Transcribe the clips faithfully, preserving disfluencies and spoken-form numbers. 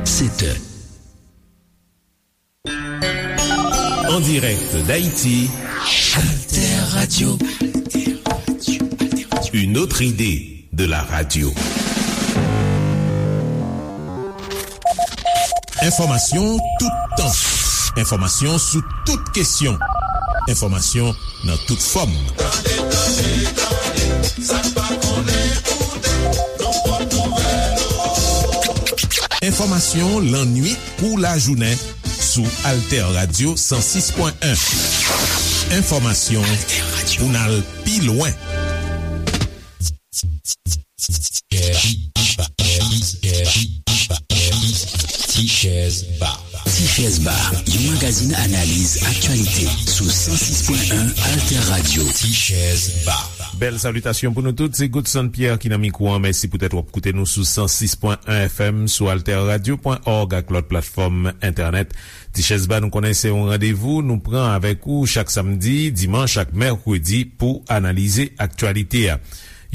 Sept heures. En direct d'Haïti, Alter Radio. Une autre idée de la radio. Enfòmasyon toutan. Enfòmasyon sou tout kesyon. Enfòmasyon nan tout fòm. Tande, tande, tande, sa n pa konnen koute, nou pot nouvèl. Enfòmasyon lannuit kou lajounen sou Alter Radio san sis pwen en. Enfòmasyon pou n al pi lwen. Ti Chèz Ba. Ti Chèz Ba, yon magazin analiz aktyalite sou san sis pwen en Alter Radio. Ti Chèz Ba. Bèl salitasyon pou nou tout, se Godson Pierre ki nan mikwo an. Mèsi poutèt w ap koute nou sou san sis pwen en F M, sou alter radio pwen org ak lòt platfòm entènèt. Ti Chèz Ba, nou konnen se yon randevou nou pran avèk ou chak samdi, dimanch ak mèkredi pou analize aktyalite a.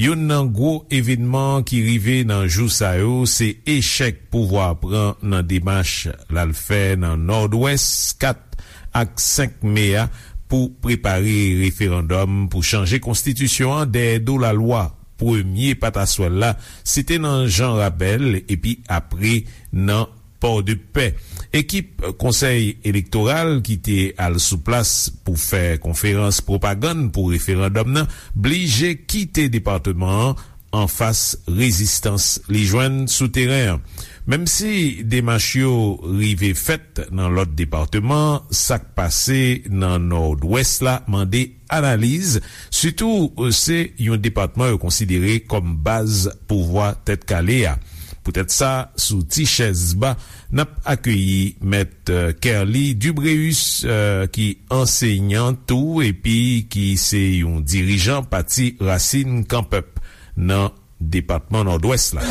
Youn nan gwo evènman ki rive nan jou sa yo, se echèk pouvwa a pran nan demach l al fè nan Nòdwès, kat ak senk me a, pou prepare referandòm pou chanje konstitisyon an dèyè do lalwa. Premye pataswèl la, se te nan Jan Rabèl, epi apre nan Pòdepè. Ekip Konsèy Elektoral ki te al sou plas pou fè konferans pwopagann pou referandòm nan blije kite depatman an anfas rezistans li jwenn sou teren an. Menm si demach yo rive fèt nan lòt depatman, sa k pase nan Nòdwès la mande analiz, sitou se yon depatman yo konsidere kòm baz pouvwa Tèt Kale a. Poutèt sa, sou Ti Chèz Ba, n ap akeyi Mèt, euh, Kerly Dubréus, euh, ki ansenyan tou epi ki se yon dirijan pati Rasin Kan Pèp nan depatman Nòdwès la.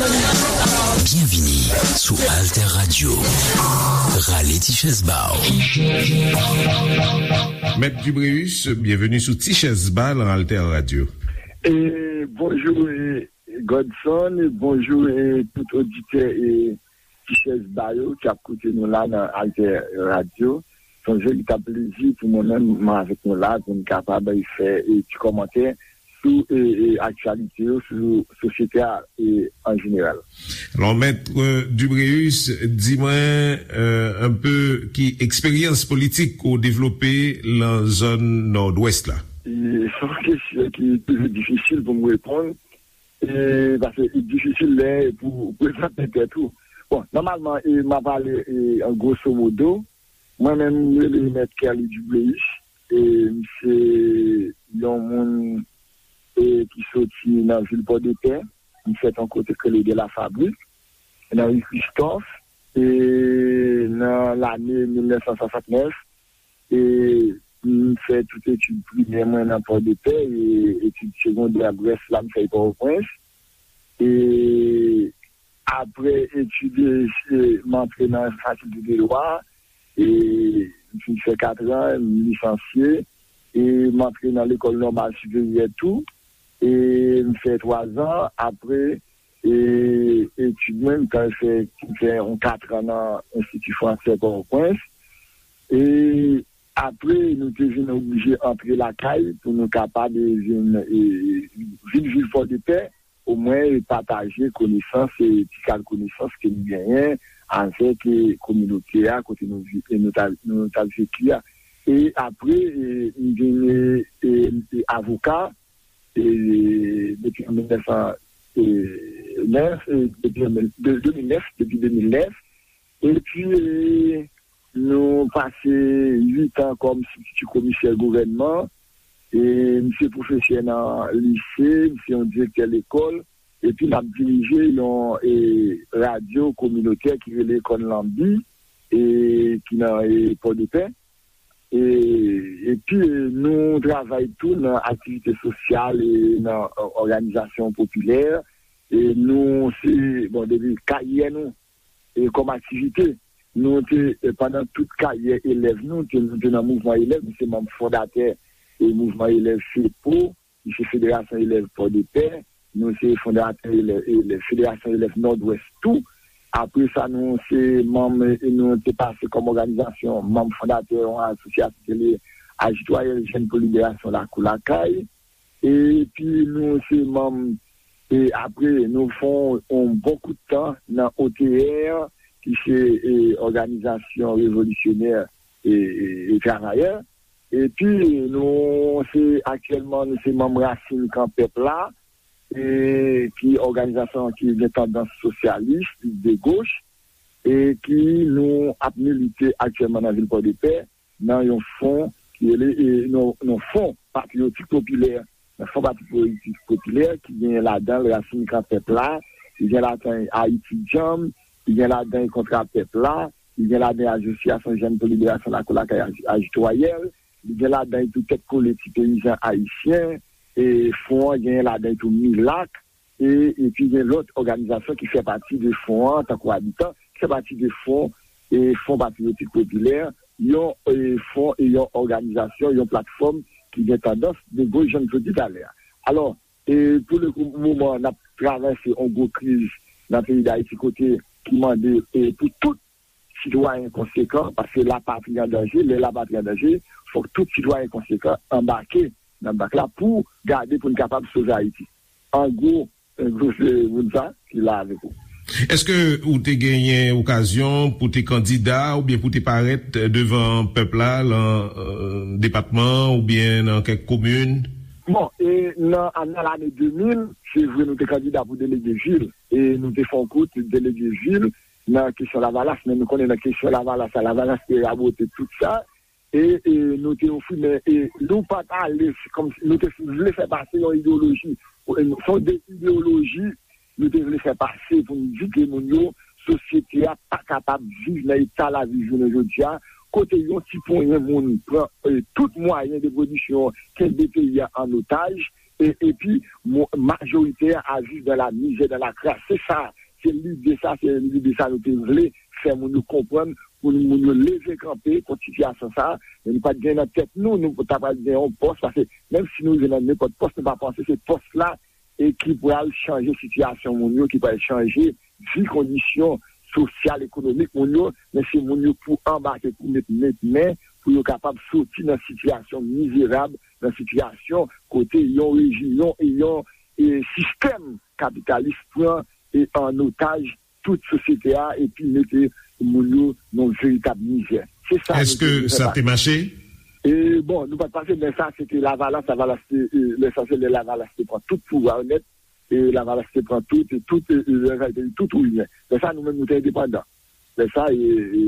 Byenvini sou Alter Radio. Rale ti chèz ba w. Mèt Dubréus, byenveni sou Ti Chèz Ba nan Alter Radio. E, bonjou, e, Godson, e, bonjou, e, tout oditè, e, Ti Chèz Ba yo ki ap koute nou la nan Alter Radio. Se yon veritab plezi pou mwen menm, mwen avèk nou la, pou n kapab fè, e, ti kòmantè sou, e, e, aktyalite yo, sou sosyete a, e, an jeneral. Alò, Mèt, e, Dubréus, di mwen, e, un peu ki eksperyans politik ou devlope nan zòn Nòdwès la? E, se yon kesyon ki toujou difisil pou m reponn, e, paske li difisil lè pou prezante tèt ou. Bon, nòmalman, e, m a pale, e, an grosso modo, mwen menm, m rele Mèt Kerly Dubréus, e, m se yon moun, e, ki soti nan vil Pòdepè, m fèt yon kote k rele De la Fabrique, nan ri Christophe, e, nan lane mil nèf san swasantnèf, e, m fè tout etid primè mwen nan Pòdepè, e etid segondè, rès la, m fè Pòtoprens. E apre etid, e, m antre nan fakilte de dwa, e m fin fè katran, m lisansye, e m antre nan lekòl nòmal siperyè tou, e m fè twazan, apre, e etid mwen, m t al fè, m fè yon katran nan Enstiti Fransè Pòtoprens, e apre, nou te vin oblije antre lakay pou nou kapab, e, vin, e, vin viv Pòdepè, omwen, e, pataje konesans, e, ti kal konesans ke nou genyen avèk, e, kominote a, kote nou vi-, e, nou ta, nou t ap viv a. E apre, e, m vin, e, e, e, avoka, e, depi an mil nèf san nèf, e, depi an mil, de, de mil nèf, depi de mil nèf. Epi, e, nou pase uit an kòm sibtiti komisè gouvènman. E, m se pwofesè nan lise, m se yon direktè lekòl, epi m ap dirije yon, e, radyo kominotè ki rele Kòn Lanbi, e, ki nan, e, Pòdepè. E, epi, e, nou travay tou nan aktivite sosyal, e, nan, e, òganizasyon popilè. E nou se, bon, depi karyè nou, e, kòm aktivite, nou te, e, pandan tout karyè elèv nou, te, nou te nan mouvman elèv, nou se manm fondatè, e, mouvman elèv FEPO, nou se Federasyon Elèv Pòdepè, nou se fondatè elèv, elèv, Federasyon Elèv Nòdwès tou. Apre sa, nou se manm, e nou te pase kòm òganizasyon, manm fondatè yon asosyasyon ki rele Ajitwayèl Jèn pou Liberasyon Lakou Lakay. Epi nou se manm, e apre, nou fè yon bon kout tan nan O T R, ki se e, òganizasyon revolisyonè e, e, e travayè. Epi nou se aktyèlman nou se manm Rasin Kan Pèp la, e, ki òganizasyon ki gen tandans sosyalis, de goch, e ki nou ap milite aktyèlman nan vil Pòdepè, nan yon fon ki rele, e, nan, nan fon patriyotik popilè. Nan fon patriyotik popilè ki gen ladan l Rasin Kan Pèp la, ki gen ladan Ayiti Djanm, ki gen ladan Kontra Pèp la, ki gen ladan Asosyasyon Jèn pou Liberasyon Lakou Lakay Aj- Ajitwayèl, li gen ladan tou Tèt Kole Ti Peyizan Ayisyen, e fon an gen ladan tou Milak, e, epi gen lòt òganizasyon ki fè pati de fon an, tankou Abitan, ki fè pati de fon, e, Fon Patriyotik Popilè, yon e, fon e yon òganizasyon, yon platfòm ki gen tandans de goch, jan m te di talè a. Alò, e, pou le kou, moman, n ap travèse yon gwo kriz nan peyi Dayiti kote ki mande e, pou tout sitwayen konsekan, paske lapatri an danje, lè lapatri an danje, fòk tout sitwayen konsekan anbake nan bak la pou gade pou n kapab sove Ayiti. An gwo, an gwo se moun sa ki la avèk ou. Èske ou te genyen okazyon pou te kandida oubyen pou te parèt devan pèp la lan e, depatman oubyen nan kèk komin? Bon, e nan, nan lane de mil, se vre nou te kandida pou delege vil, e nou te fè yon kout delege vil nan kesyon Lavalas, men nou konnen nan kesyon Lavalas la, Lavalas te rabote tout sa, e, e nou te ofri, men e, nou pa t ale, se kòmsi nou te vle fè pase yon ideyoloji, e, se yon de ideyoloji nou te vle fè pase pou n di ke moun yo, sosyete a pa kapab viv nan eta lavi jounen jodi a, kote yon ti ponyen moun pran e, tout mwayen de pwodiksyon, kenbe peyi a an otaj, e, epi mo- majorite a viv dans la misère, dans la crasse. Se sa, se lide sa, se lide sa nou te vle fè moun yo konprann, pou moun yo leve kanpe kont sitiyasyon sa a. Men nou pa t gen nan tèt nou, nou ta pral gen yon pòs, paske menm si nou rive nan nenpòt pòs, nou pa panse se pòs la e ki pral chanje sitiyasyon moun yo, ki pral chanje vi, kondisyon sosyal, ekonomik moun yo, men se moun yo pou anbake, pou met, met men, pou yo kapab soti nan sitiyasyon mizerab, nan sitiyasyon kote yon rejim, yon, e, sistèm kapitalis pran e, an otaj tout sosyete a epi mete moun yo nan veritab mizè. Se sa nou Èske te vle fè sa te mache? E, bon, nou pa t pase, men sa, se te Lavalas, Lavalas te, e, lè sa, se lè Lavalas te pran tout pouvwa yo nèt, e Lavalas te pran tout, e tout, e, e, lè sa, te tout ou rien. Lè sa, nou menm, nou te endepandan. Lè sa, e, e,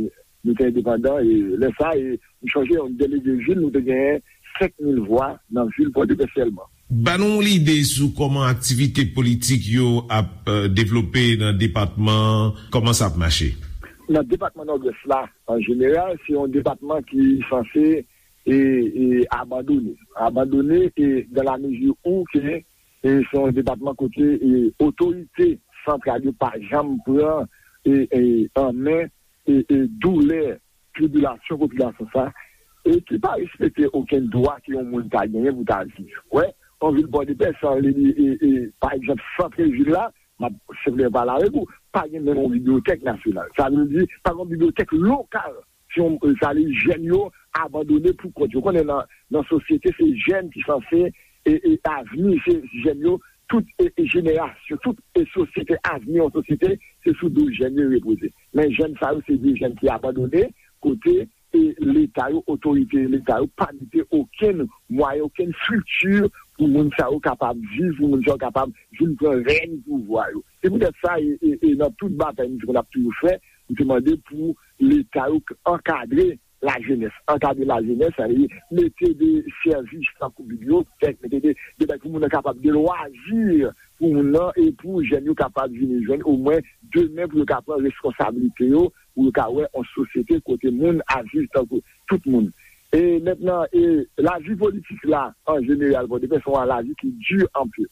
nou te endepandan, e lè sa, e, m chonje, yon delege vil, nou te genyen senk mil vwa nan vil Pòdepè sèlman. Ban nou yon lide sou kòman aktivite politik yo ap e, devlope nan depatman, kòman sa ap mache? Nan depatman Nòdwès la, an jeneral, se yon depatman ki sanse e, e, abandone. Abandone e, dans la mesure où ke e, se yon depatman kote e, otorite santral yo pa janm pran e, e, an men e, e, doulè, tribilasyon popilasyon sa, e ki pa respekte okenn dwa ke yon moun ta genyen pou ta viv. Wè, yon vil Pòdepè, san li, e, e, pa egzanp, sant vil la, m ap senpleman pale avèk ou, pa gen menm yon bibliyotèk nasyonal. Sa vle di, pa gen yon bibliyotèk lokal. Si yon, sa vle di, jèn yo abandone pou kont yo. Konnen nan, nan sosyete, se jèn ki sanse e, e avni, se jèn yo, tout e, e jenerasyon, tout e sosyete, avni yon sosyete, se sou do jèn yo repoze. Men jèn sa yo, se de jèn ki abandone, kote e Leta yo, otorite Leta yo, pa mete okenn mwayen, okenn estrikti pou moun sa yo kapab viv, pou moun sa yo kapab vin pran rèn pouvwa yo. Se poutèt sa, e, e, e nan tout batay nou te konn ap toujou fè, nou te mande pou Leta yo ankadre lajenès, ankadre lajenès, sa vle di mete de sèvis tankou bibliyotèk, mete de, de bagay pou moun nan kapab, de lwazi pou moun nan, e pou jèn yo kapab vin jwenn omwen demen pou yo ka pran reskonsablite yo, pou yo ka wè yon sosyete kote moun ap viv tankou tout moun. E mentnan, e lavi politik la, an jeneral, Pòdepè se yon lavi ki di anpil.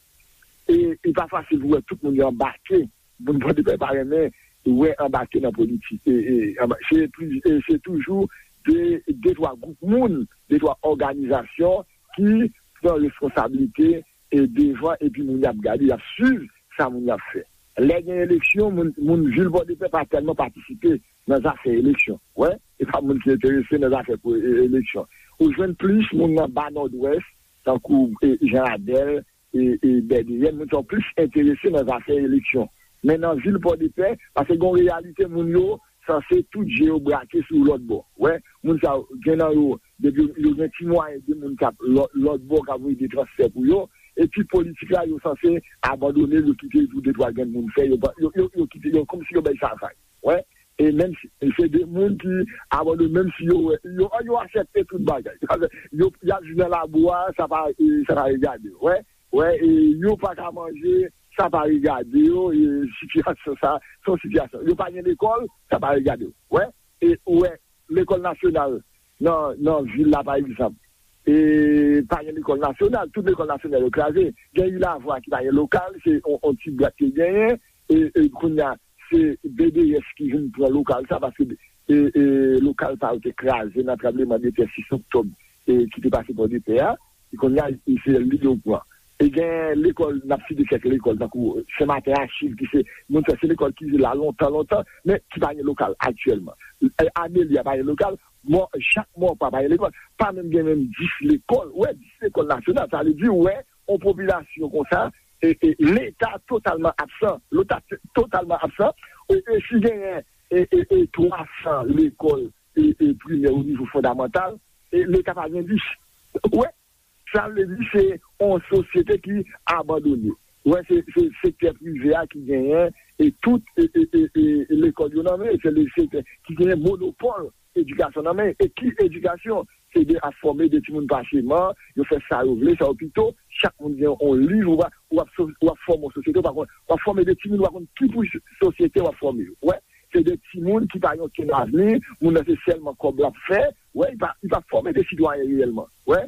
E li pa fasil pou wè tout moun yo anbake. Moun Pòdepè pa renmen wè anbake nan politik. E, e, anba- se pli- e se toujou de, de twa gwoup moun, de twa òganizasyon ki pran reskonsablite e devan, epi moun y ap gade, y ap swiv sa moun y ap fè. Lè gen eleksyon, moun, moun vil Pòdepè pa tèlman patisipe nan zafè eleksyon. Wè, e pa moun ki enterese nan zafè pou e- eleksyon. Ou jwenn plis moun nan ba Nòdwès, tankou e, Jan Adèl, e, e Bèdeyèn, moun sa yo plis enterese nan zafè eleksyon. Men nan vil Pòdepè, paske gen yon reyalite, moun yo sanse tout je yo brake sou lòt bò. Wè, moun sa yo, gen nan yo, depi yo, yo gen ti mwayen de moun k ap lò- lòt bò k ap voye de transfè pou yo, epi politik la, yo sanse abandone l, yo kite l pou de twa grenn moun fè, yo, pa- yo, yo, yo kite, yo kòmsi yo bay sa vag. Wè, e menm si se de moun ki abandone, menm si yo wè, yo, yo aksepte tout bagay. Yo, y ap viv nan labou a, sa pa, e, sa pa regade yo. Wè, wè, e, yo pa ka manje, sa pa regade yo, e, sitiyasyon sa, se yon sitiyasyon. Yo pa gen lekòl, sa pa regade yo. Wè, e, ou wè, lekòl nasyonal nan, nan vil la, pa egzanp, e, pa gen lekòl nasyonal, tout lekòl nasyonal yo kraze. Gen Ilavwa ki pa gen lokal, se yon, yon ti bwat ki genyen, e, e, kounye a, se B D S ki vin pran lokal sa, paske, e, e, lokal sa yo te kraze nan tranbleman de tè sis oktòb, e, ki te pase Pòdepè a. E kounye a, e se li yo pran. E gen lekòl, n ap site kèk lekòl, tankou Sen Maten Achiv, ki se, moun sa, se lekòl ki la lontan, lontan, men ki pa gen lokal aktyèlman. E, Amelia pa gen lokal, mò, Jakmòpa pa gen lekòl, pa menm gen menm dis lekòl. Wè, dis lekòl nasyonal, sa vle di, wè, yon popilasyon konsa, e, e, Leta totalman absan, Leta t- totalman absan, e, e si genyen, e, e, e, twa san lekòl, e, e, primè o nivo fondamantal, e, Leta pa gen dis. Wè, sa vle di se yon sosyete ki abandone. Wè, se, se sektè prive a ki genyen, e tout, e, e, e, e, lekòl yo nan men, se le sektè ki genyen monopòl edikasyon nan men. E ki edikasyon? Se de ap fòme de timoun paseman, yo fè sa yo vle, sa yo pito, chak moun gen yon liv, ou pa, w ap so- w ap fòme yon sosyete, ou pa konn, w ap fòme de timoun, ou pa konn ki pou sosyete w ap fòme yo. Wè, se de timoun ki pa gen okenn avni, moun nan se sèlman kòb l ap fè, wè, li pa, li pa fòme de sitwayen reyèlman. Wè,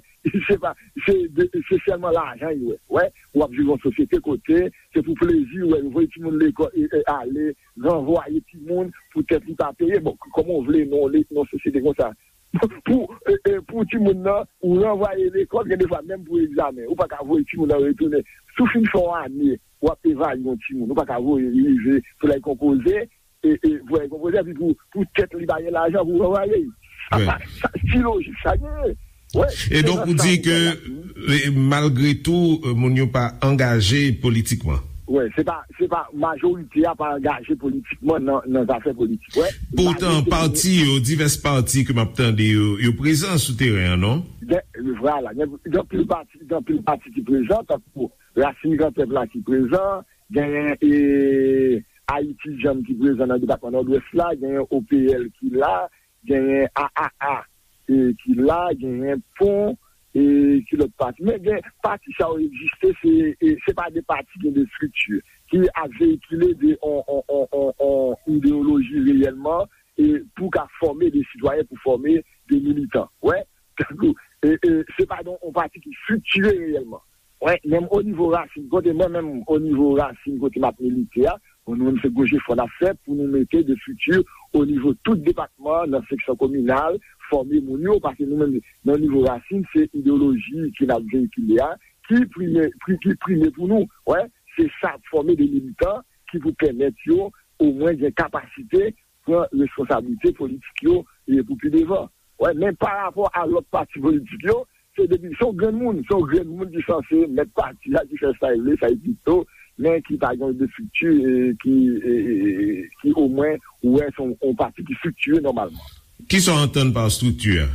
se pa, se de, se sèlman lajan li wè. Wè, w ap viv yon sosyete kote, se pou plezi, wè, yo voye timoun lekòl, e, e, ale, ranvwaye timoun, poutèt li pa peye. Bon, kòman w vle nan, nan sosyete konsa? Pou, e, e, pou timoun nan, ou ranvwaye lekòl, gen de fwa menm pou egzamen, ou pa ka voye timoun nan retounen. Si w fin fè yon ane, w ap evalye yon timoun, ou pa ka voye li rive pou l al konpoze, e, e, pou l al konpoze, epi pou, pou tèt li pa gen lajan pou ranvwaye l. Sa Wi. pa, sa, ki lojik sa genyen? Wè, E se donk, nan ou sa di ke, e, malgre tou, e, moun yo pa angaje politikman. Wè, se pa, se pa, majorite a pa angaje politikman nan, nan zafè politik. Wè, Poutan, malgre pati yo, divès pati ke m ap tande yo, yo prezan sou teren an, non? Gen, vwala, gen, gen anpil pati, gen anpil pati ki prezan, tankou Rasin Gran Pèp la ki prezan, genyen, e, Ayiti Djanm ki prezan nan depatman Nòdwès la, genyen O P L ki la, genyen A A A, e, ki la, genyen Pon, e, ki lòt pati. Men gen pati sa yo egziste, se, e, se pa de pati, gen de estrikti ki ap veyikile de on, on, on, on, on ideyoloji reyèlman, e, pou ka fòme de sitwayen, pou fòme de militan. Wè, tankou, e, e, se pa de on pati ki estriktire reyèlman. Wè, menm o nivo rasin, kote mwen menm, o nivo rasin, kote m ap milite a, bon, nou menm se gwo jefò n ap fè pou nou mete de estrikti o nivo tout depatman, nan seksyon kominal, fòme moun yo, paske nou menm, nan nivo rasin, se ideyoloji ke n ap veyikile a, ki prime, pri- ki prime pou nou. Wè, se sa, fòme de militan ki pou pèmèt yo omwen gen kapasite pran responsablite politik yo, e, pou pi devan. Wè, men pa rapò a lòt pati politik yo, se depi, se yon grenn moun, se yon grenn moun ki sanse mèt pati a, ki fè sa l vle, sa l pito, men ki pa gen de estrikti, e, ki, e, e, e, ki omwen, ou wè, se yon, yon pati ki estriktire nòmalman. Kisa w antann pa estrikti a?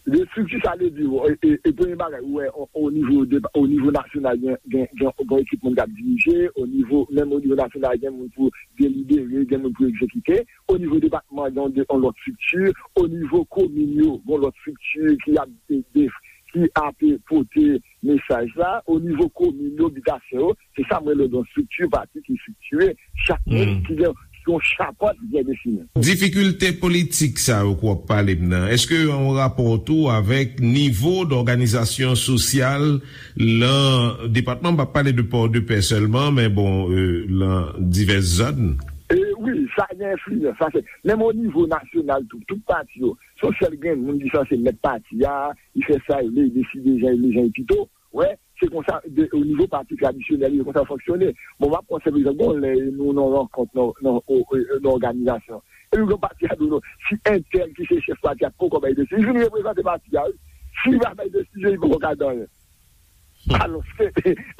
De estrikti, sa vle di, e, e, e premye bagay, ou wè, o, o nivo de, o nivo nasyonal, gen, gen, gen, gen ekip moun k ap dirije, o nivo, menm o nivo nasyonal, gen moun pou delibere, gen moun pou egzekite. O nivo depatman, gen yon de- yon lòt estrikti. O nivo komin yo, gen yon lòt estrikti ki ap de- de- ki ap pote mesaj la. O nivo komin yo, bitasyon yo, se sa m rele yon estrikti pati ki estriktire. Chak moun Hmm. ki gen yon chapant byen defini. Difikilte politik sa yo ke w ap pale m nan, èske yo an rapò tou avèk nivo dòganizasyon sosyal lan depatman, m p ap pale de Pòdepè sèlman, men bon, e, lan divès zòn. E, wi, sa gen enfliyans. Sa se, menm o nivo nasyonal tou, tout pati yo, se yon sèl grenn moun ki sanse mèt pati a, li fè sa li vle, li deside jan li vle, jan li pito. Wè, se konsa, de, o nivo pati tradisyonèl, se konsa l fonksyone. Bon, m ap pran senp egzanp, gon lè nou nan rankont, nan, nan, o, o, nan òganizasyon. Epi gon pati a di w non, si entèl ki se chèf pati a poko bay desizyon, li vin reprezante pati a, wi. Si li pa bay desizyon, li poko ka di anyen. Alòske,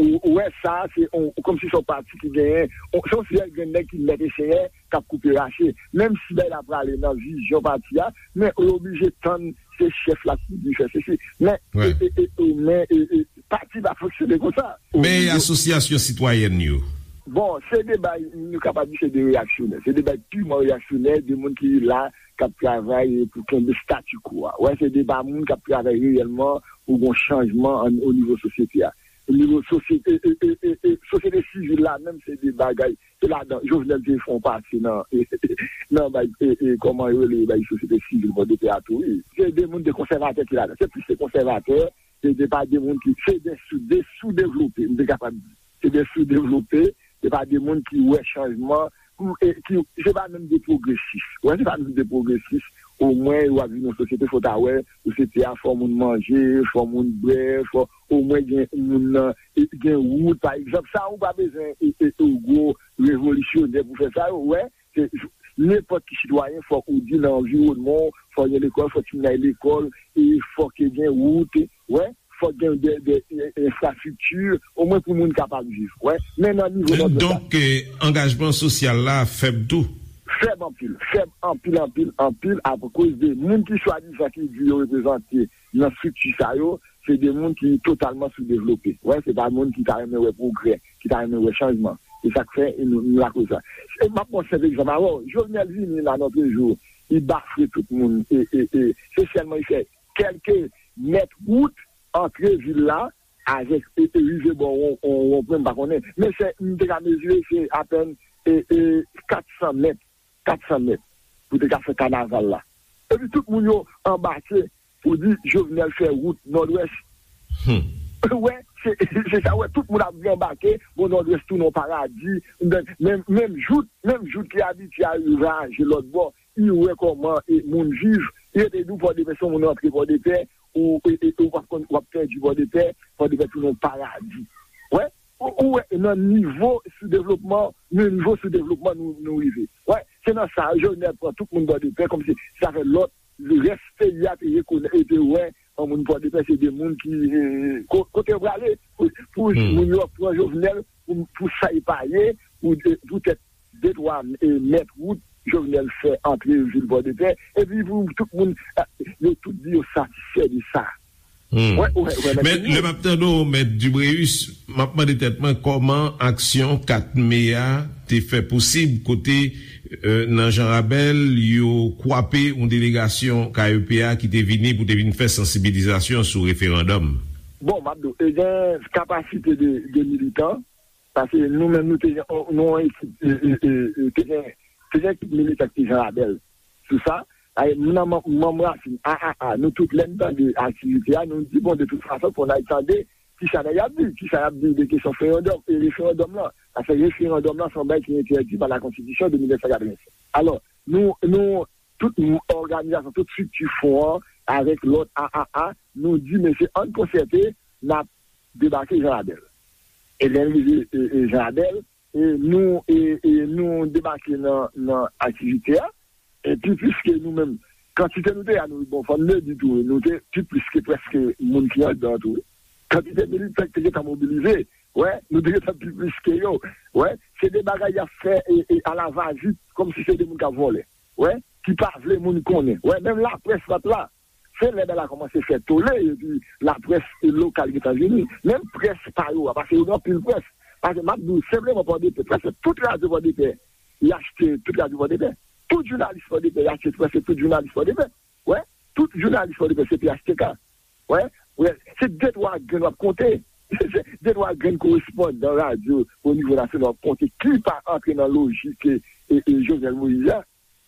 ou, ou wè sa, se on, kòmsi se yon pati ki genyen, on, se yon sèl grenn nèg ki mèt e senyè, k ap koupe rache. Menm si bagay la prale nan vizyon pati a, men yo oblije tann se chèf la ki di fè sesi. Men, e, e, e, e, men, e, e, pati pa fonksyone konsa. Men asosyasyon sitwayèn yo? Bon, se de bay, nou kapab di se de reyaksyonè. Se de bay piman reyaksyonè, de moun ki la, k ap travay pou kenbe statu quo a. Wè, se de pa moun k ap travay reyèlman pou gon chanjman an, o nivo sosyete a. O nivo sosyete, e, e, e, e, e, sosyete sivil la, menm se de bagay, se ladan, Jovenel te fè yon pati nan, nan bay, e, e, kòman yo rele, bay sosyete sivil Pòdepè a tou, wi. Se de moun de konsèvatè ki ladan. Se plis se konsèvatè, se de pa de moun ki, se de sou, de soudevlope, m te kapab di. Se de soudevlope, se pa de moun ki wè chanjman, pou, e, ki, se pa menm de pwogresis. Wè, se pa menm de pwogresis. Omwen, w ap viv nan sosyete, fò w ta wè, sosyete a, fò moun manje, fò moun bwè, fò omwen gen moun nan, e, gen wout, pa egzanp. Sa, ou pa bezwen, e, e, e, gwo revolisyonè pou fè sa, yo, wè, se, nenpòt ki sitwayen, fòk ou di nan anviwònman w, fòk gen lekòl, fòk timoun al lekòl, e fòk gen wout, wè, fòk gen de, de, de enfrastrikti, omwen pou moun kapab viv, wè. Men nan nivo nan Donk, eh, angajman sosyal la fèb tou? Fèb anpil, fèb anpil, anpil, anpil, akoz de moun ki swadizan ki di yo reprezante nan estrikti sa yo, se de moun ki totalman soudevlope. Wè, se pa moun ki ta renmen wè pwogrè, ki ta renmen wè chanjman. Se sa k fè nou, nou lakoz sa. E m ap pran senp egzanp avè w. Jovenel vini la lòt jou, li bafre tout moun. E, e, e, se sèlman li fè kèlke mèt wout antre vil la, avèk, e, e, rive bò won, won, wonpwen, m pa konnen. Men se, m te ka mezire, se apèn, e, e, kat san mèt, kat san mèt, pou te ka fè kanaval la. Epi tout moun yo anbake pou di Jovenel fè wout Nòdwès. Hmm. Wè, se, se sa, wè, tout moun ap anbake, bon, Nòdwès tounen yon paradi, menm, menm jout, menm jout ki abitye al raje lòt bò, li wè kòman, e, moun viv, li rete di w Pòdepè, se yon moun rantre Pòdepè, ou, e, e, ou p ap konn, w ap pèdi Pòdepè, Pòdepè tounen yon paradi. Wè, ou, ou wè, nan nivo soudevlopman, nan nivo soudevlopman nou, nou rive. Wè, se nan sa, Jovenel pran tout moun Pòdepè, kòmsi sa fè lòt, rès peyi a te rekonèt, e te wè, an moun Pòdepè, se de moun ki, e, ko-, kote yo prale, pou, pou moun yo pran Jovenel, pou, pou sa e pa ye, pou, poutèt de twa, e, mèt wout Jovenel fè antre vil Pòdepè, epi pou tout moun, e, yo tout di yo satisfè de sa. Hmm. Wè, wè, wè, Men lè m ap tande w, Mèt Dubréus, m ap mande tèt mwen kòman aksyon kat me a te fè posib, kote, e, nan Jan Rabèl, yo kwape yon delegasyon K E P a ki te vini pou te vin fè sansibilizasyon sou referandòm. Bon, m ap di w, e gen kapasite de, de militan, Paske nou menm, nou te gen, nou yon ekip, e, e, e, e, te gen, te gen ekip militan ki te Jan Rabèl. Sou sa, ay, m nan manm, manm Rasin, A A A, nou tout lè n tande aktivite a, nou di, bon, de tout fason, fò n al tande kisa nèg y ap di, kisa y ap di de kesyon referandòm, e referandòm lan. Paske referandòm lan, se yon bagay ki entèdi pa la konstitisyon de mil nèf san katrevennsèt. Alò, nou, nou, tout òganizasyon, tout estrikti fon an, avèk lòt A A A, nou di, mesye, ann konsète, n ap debake Jan Rabèl. E lè n rive, e, e, Jan Rabèl, e, nou, e, e, nou debake nan, nan aktivite a, epi piske nou menm, kantite nou te a, nou, bon, fò n le di tou, nou te pi plis ke prèske moun ki anndan tou, wi. Kantite militan ki te gentan mobilize, wè, nou te gentan pi plis ke yo, wè, se de bagay y ap fè, e, e, alavazit, kòmsi se de moun k ap vòlè. Wè, ki pa vle moun konnen. Wè, menm laprès pa t la. Se lè bagay la kòmanse fè tole, epi laprès lokal gentan vini. Menm près pa yo a, paske yo gen anpil près. Paske m ap di w senpleman Pòdepè, prèske tout radyo Pòdepè, y achte tout radyo Pòdepè. Tout jounalis Pòdepè, y achte prèske tout jounalis Pòdepè. Wè, tout jounalis Pòdepè se P H T K. Wè, wè, se de twa grenn w ap konte. Se de twa grenn korespondan radyo o nivo nasyonal w ap konte ki pa antre nan lojik e, e, e Jovenel Moïse a.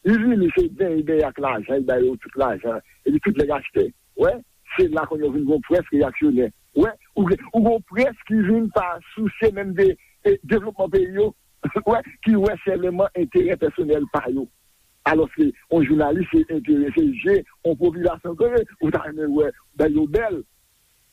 Li vini, se benyen, benyen ak lajan, li ba yo tout lajan, epi tout nèg achte. Wè, se la kounye a w vin gon près reyaksyonè. Wè, ou gen, ou gon près ki vin pa sousye menm de, e, devlopman peyi yo. Wè, ki wè sèlman enterè pèsonèl pa yo. Alòske yon jounalis se enterese je yon popilasyon ke ou ta renmen wè bay yo bèl.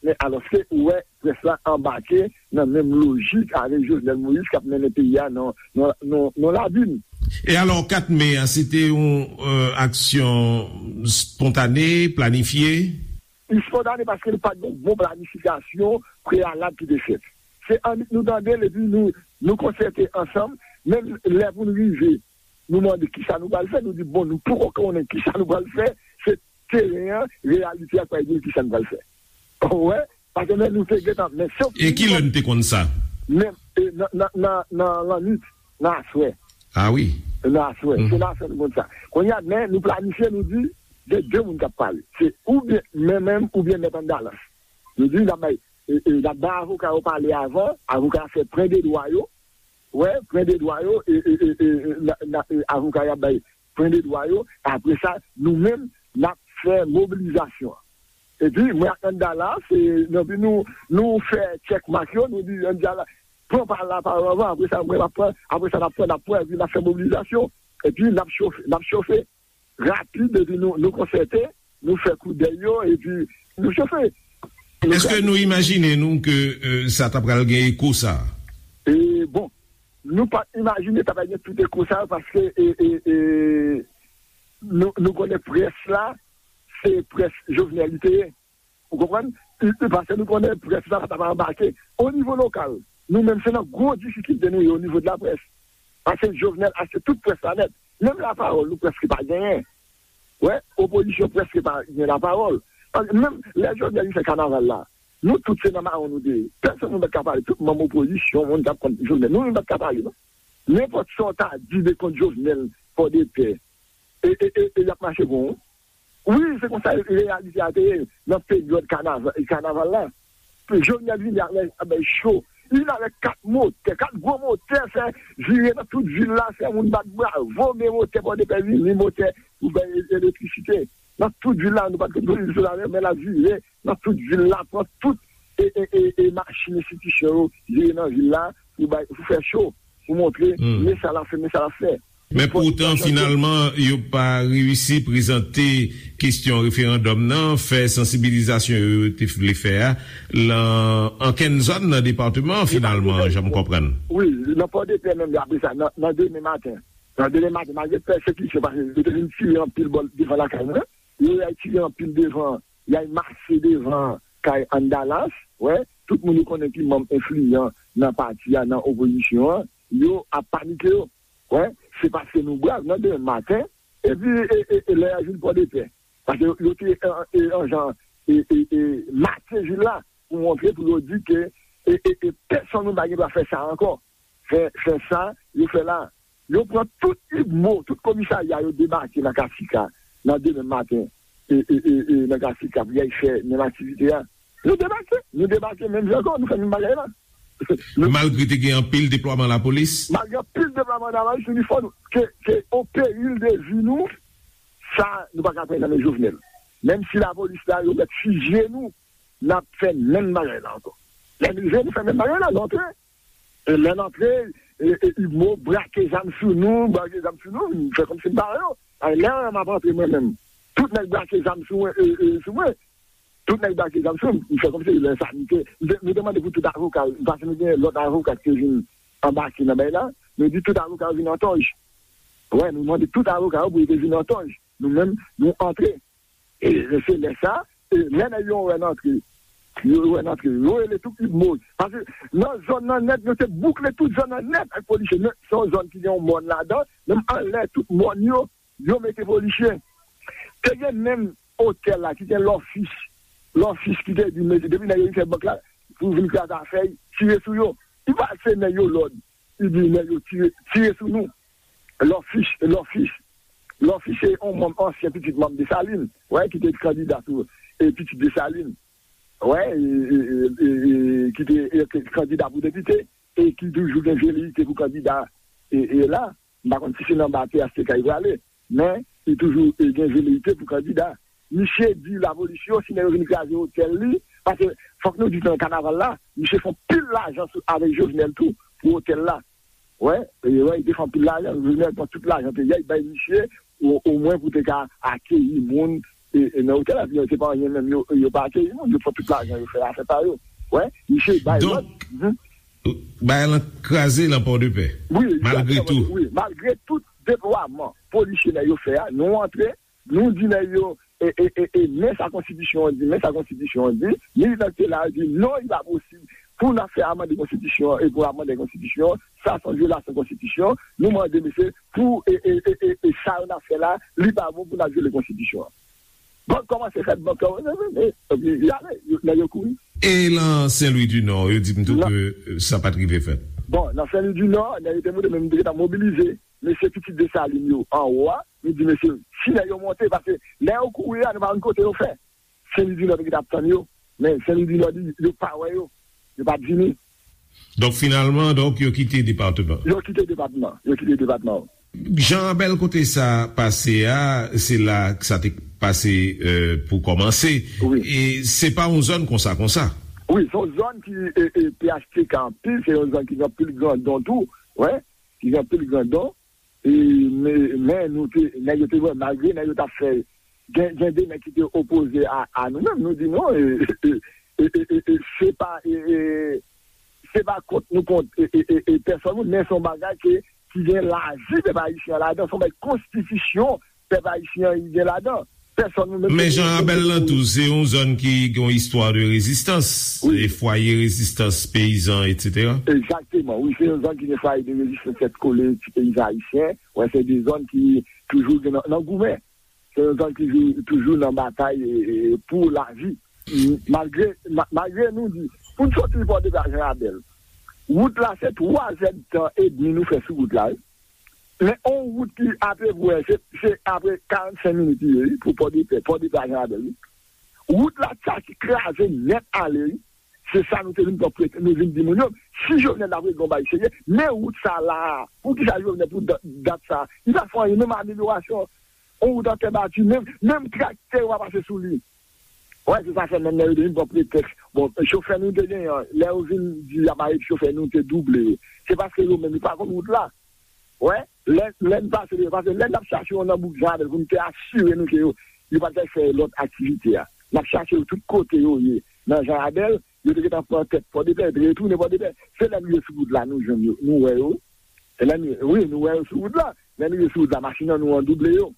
Men alòske ou wè près la anbake nan menm lojik avèk Jovenel Moïse k ap mennen peyi a nan, nan, nan, nan labim. E alò, kat me a, se te yon euh, aksyon spontane, planifye? Li spontane paske nou pa t gen yon bon planifikasyon preyalab ki te fèt. Se annik nou tande l epi nou, nou konsète ansanm, menm lè pou n rive, nou mande kisa nou pral fè, nou di, bon, nou poko konnen kisa nou pral fè, se teren an, reyalite a k pral di n kisa nou pral fè. Ou wè? Paske men nou te gentan, men sof E ki lè n te konn sa? Men e, nan, nan, nan, nan lannwit, nan aswè. Ah wi. Nan aswè. Se nan aswè nou konn sa. Kounye a, men nou planifye, nou di, gen de moun k ap pale. Se oubyen men menm, oubyen mèt Andalans. Nou di, n ap bay, e, e, n ap bay avoka yo pale avan, avoka yo fè pwen de dwa yo. Wè, pwen de dwa yo, e, e, e, e, na, na, e, avoka yo ap bay pwen de dwa yo. Apre sa, nou menm, n ap fè mobilizasyon an. Epi, mwen ak Andala, se, epi nou, nou fè tchèkmak yo, nou di Andala, pran pa lapawòl avan, apre sa, mwen, m ap pran, apre sa, n ap pran, n ap pran, epi n ap fè mobilizasyon. Epi, n ap chofe, n ap chofe. Rapid, epi nou, nou konsète, nou fè koudèy yo, epi nou chofe. Èske nou imajine nou ke euh, sa ta pral gen eko sa? E, bon, nou pa t imajine ta pral gen tout eko sa yo, paske e, e, e, nou, nou konnen près la, se près Jovenel li te ye. Ou konprann? E, e, paske nou konnen près la pa ta pral anbake. O nivo lokal, nou menm se nan gwo difikilte nou ye o nivo de laprès. Paske Jovenel achte tout près la nèt. Menm lapawòl, nou prèske pa genyen. Wè, opozisyon prèske pa gen lapawòl. Paske menm lè Jovenel li fè kanaval la, nou tout se nan mawon nou te ye. Pèsonn nou pa t ka pale. Tout manm opozisyon, moun k ap kont Jovenel, nou menm pa t ka pale, non. Nenpòt sa w ta di de kont Jovenel, Pòdepè, e, e, e, e y ap mache kon ou. Wi, se konsa reyalite a te ye nan peryòd kanaval, kanaval la. Jovenel vini avèk, avèk cho. Li vin avèk kat motè, kat gwo motè, fè vire nan tout vil la, fè moun bat bravo, men motè Pòdepè vini, motè pou bay e- elektrisite. Nan tout vil la, nou pa t konn polis sou la, men l ap vire nan tout vil la, pran tout e, e, e, e machin enstitisyon yo, vire nan vil la, pou bay, pou fè cho, pou montre, men sa l ap fè, men sa l ap fè. Men poutan, finalman, yo pa reyisi prezante kesyon referandòm nan, fè sansibilizasyon yo yo te vle fè a, lan ankenn zòn nan depatman an, finalman, jan m konprann. Wi, nan Pòdepè menm, apre sa, nan, nan demen maten. Nan demen maten, malgre pèsekisyon, paske yo te vin tire anpil bò devan lakay mwen, yo al tire anpil devan, y al mase devan kay Andalas, wè, tout moun yo konnen ki manm enfliyan nan pati a, nan opozisyon an, yo ap panike yo. Wè, se paske nou brav nan demen maten, epi e, e, e lè y al vin Pòdepè. Paske yo, yo te an, e, an jan e, e, e, make vil la pou montre, pou yo di ke e, e, e, pèsonn moun pa gen dwa fè sa ankò. Fè, fè sa yo fè la. Yo pran tout UMNO, tout komisarya yo debake nan Kasika nan demen maten, e, e, e, e, nan Kasika pou y al fè menm aktivite a. Nou debake, nou debake menm jan ankò, nou fè menm bagay la. Malgre te gen anpil deplwaman lapolis? Malgre anpil deplwaman lapolis, nou di fò nou, ke, ke o peril de vi nou, sa nou pa ka pran nan men Jovenel. Menm si lapolis la, yo mèt fizye nou, n ap fè menm bagay la ankò. Lè n rive, nou fè menm bagay la, nou antre. E lè n antre, e, e, UMNO brake zam sou nou, brake zam sou nou, nou fè kòmsi n pa wè yo. Ay, lè m ap antre mwen menm, tout nèg brake zam sou mwen, e, e, sou mwen. Tout nèg brake zam sou m, m fè kòmsi lè sa, nou te, nou te, nou te mande pou tout avoka, paske nou gen lòt avoka ki te vin anbake nan bagay la, nou di tout avoka yo vin an tòj. Wè, nou mande tout avoka yo pou yo te vin an tòj. Nou menm, nou antre. E se lè sa, e lè nèg yo wè n antre, yo wè n antre, yo rele tout UMNO. Paske nan zòn nan nèt, yo te boukle tout zòn nan nèt ak polisye. Men se yon zòn ki gen yon mòn ladan, menm anlè tout mòn yo, yo mete polisye. Te gen menm otèl la ki gen lòfis, lòfis ki te di, mete, depi nèg yo vin fè bank la, pou vin kraze afè, tire sou yo. Li pa se nèg yo lòd, li di nèg yo tire, tire sou nou. Lòfis, lòfis, lòfis se yon manm, ansyen pitit manm Desalin, wè, ki te kandida pou e, pitit Desalin, wè, e, e, e, e, e, ki te e, kandida pou depite, e ki toujou gen veleyite pou kandida e, e la. M pa konn si se nan ba P H T K li prale, men li toujou e, gen veleyite pou kandida. Misye di lapolis yo, si nèg yo vin kraze otèl li, paske fòk nou di nan kanaval la, misye fè pil lajan sou, avèk Jovenel tou, pou otèl la. Wè, e, wè, li te fè anpil lajan, Jovenel pran tout lajan peyi a, li bay misye, o, omwen pou te ka akeyi moun, e, e nan otèl la, se pa anyen menm, yo, yo pa akeyi moun, yo pran tout lajan, yo fè afè pa yo. Wè, misye bay lòd. Donk, bagay lan kraze lan Pòdepè, malgre tou. Wi, malgre tout deplwaman polisye nèg yo fè a, nou antre, nou di nèg yo, e, e, e, e, men sa konstitisyon an di, men sa konstitisyon an di, militan ki te la yo di, non, li pa posib pou n ap fè amande konstitisyon an, e pou amande konstitisyon an, sa se yon vyolasyon konstitisyon, nou mande mesye, pou, e, e, e, e, e sa yo n ap fè la, li pa bon pou n ap vyole konstitisyon an. Bank kòmanse fèt, bank kòmanse fèt, e, epi y ale, yo, nèg yo kouri. E lan Sen Lwi di Nò, yo di m tou ke, e, sa pa t rive fèt. Bon, nan Sen Lwi di Nò, nèg yo te monte, men m te gentan mobilize mesye pitit Desalin yo anwo a, nou di mesye, si nèg yo monte, paske lè yo kouri a, nou pa konn kote yo fè. Sen Lwi di Nò te gentan ap tann yo, men Sen Lwi di Nò di yo pa wè yo, yo pa t vini. Donk, finalman, donk, yo kite depatman. Yo kite depatman, yo kite depatman. Jan Abèl, kote sa pase a, se la sa te pase, e, pou kòmanse. Wi. E se pa yon zòn konsa, konsa. Wi, se yon zòn ki, e, e, P H T K anpil, se yon zòn ki gen anpil grandon tou, wè, ki gen anpil grandon. E, men, men nou te, nèg yo te wè, malgre nèg yo t ap fè, gen, gen de nèg ki te opoze a, a nou menm, nou di non, e, e, e, e, e, e, se pa, e, e, se pa kont nou kont, e, e, e, e, pèsòn moun, men se yon bagay ke, ki gen lavi pèp ayisyen an ladan, se yon bagay konstitisyon pèp ayisyen an gen ladan. Pèsòn nou menm. Men Jan Abèl lan tou, se yon zòn ki gen yon istwa de rezistans, wi, e fwaye rezistans peyizan, etsetera. Egzakteman, wi, se yon zòn ki gen fwaye de rezistans tèt kole ti peyizan ayisyen. Wè, se de zòn ki toujou gen nan, nan goumen. Se yon zòn ki jou-, toujou nan batay, e, e, pou lavi. M-, malgre, ma-, malgre nou di, pou n soti Pòdepè a Jan Abèl, wout la se twa zèdtan edmi nou fè sou wout la, wi. Men on wout ki apeprè, se, se apre karannsenk minit li ye, wi, pou Pòdepè, Pòdepè a Jan Abèl, wi. Wout la, sa ki kraze nèt ale, wi. Se sa nou te vin pran prete, nou vin di moun yo, si Jovenel t ap regle yon bagay serye, men wout sa la a, poukisa Jovenel pou dat, dat sa a, li pa fè anyen, menm amelyorasyon, on wout an tè bati, menm, menm traktè yo pa pase sou li. Wè, se sa fè menm lè yo te vin pran pretèks. Bon, chofè nou te genyen an, lè yo vin di y ap arete chofè nou, te double yo. Se paske yo menm, yo pa konn wout la. Wè, lè, lè n pase, paske lè n ap chache yo nan bouk Jan Abèl pou n te asire nou ke yo, yo pa t fè lòt aktivite a. N ap chache yo tout kote yo ye. Nan Jan Abèl, yo te gentan pran tèt Pòdepè, yo te retounen Pòdepè. Se lè n rive sou wout la, nou jwenn yo, nou wè yo. E lè n, wi, nou wè yo sou wout la. Lè n rive sou wout la, machin an nou an double yo.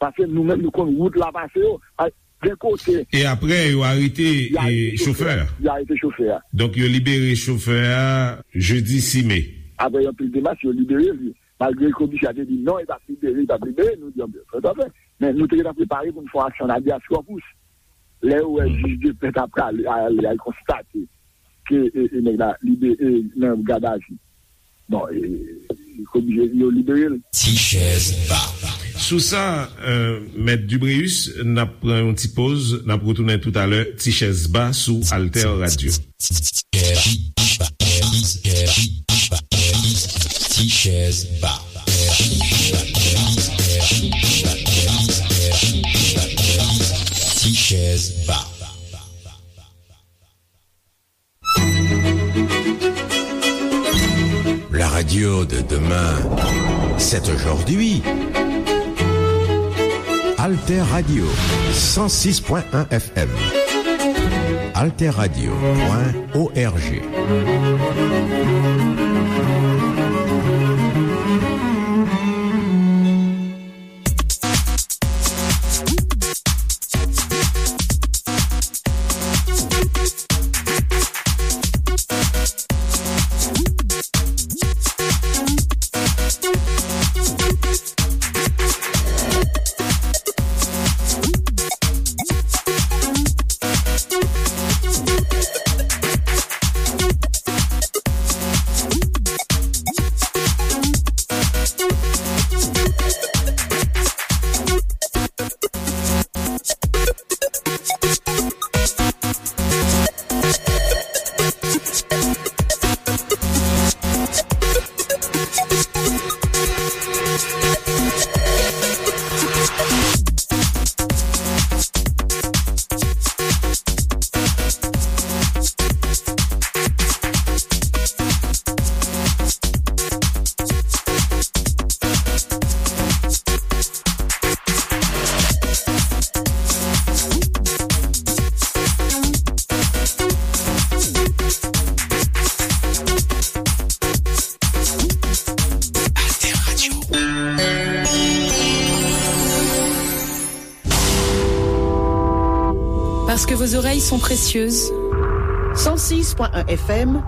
Paske nou menm nou konn wout la pase yo. A, gen kote. E apre, yo arete, yo arete e, chofè a. Yo arete chofè a. Donk, yo libere chofè a jedi sis me. Apre yon pil demach, yo libere li. Malgre komisè a te di non, li p ap libere, li p ap libere, nou di, "Anben, fè sa fè." Men nou te gentan prepare pou n fè yon aksyon habeas corpus. Lè yo wè jij de pè t ap prale, ale, al konstate ke, e, e, nèg la libere nan gadavi. Bon, e, e, oblije yo libere l. Ti chèz ba. Sou sa, e, Mèt Dubréus, n ap pran yon ti poz, n ap retounen toutalè, Ti chèz ba sou Alter Radio. Ti chèz ba. Ti chèz ba. La radio de demain, c'est aujourd'hui. Alter Radio, cent six point un F M. Alter Radio point O R G. Parce que vos oreilles sont précieuses. Cent six point un F M.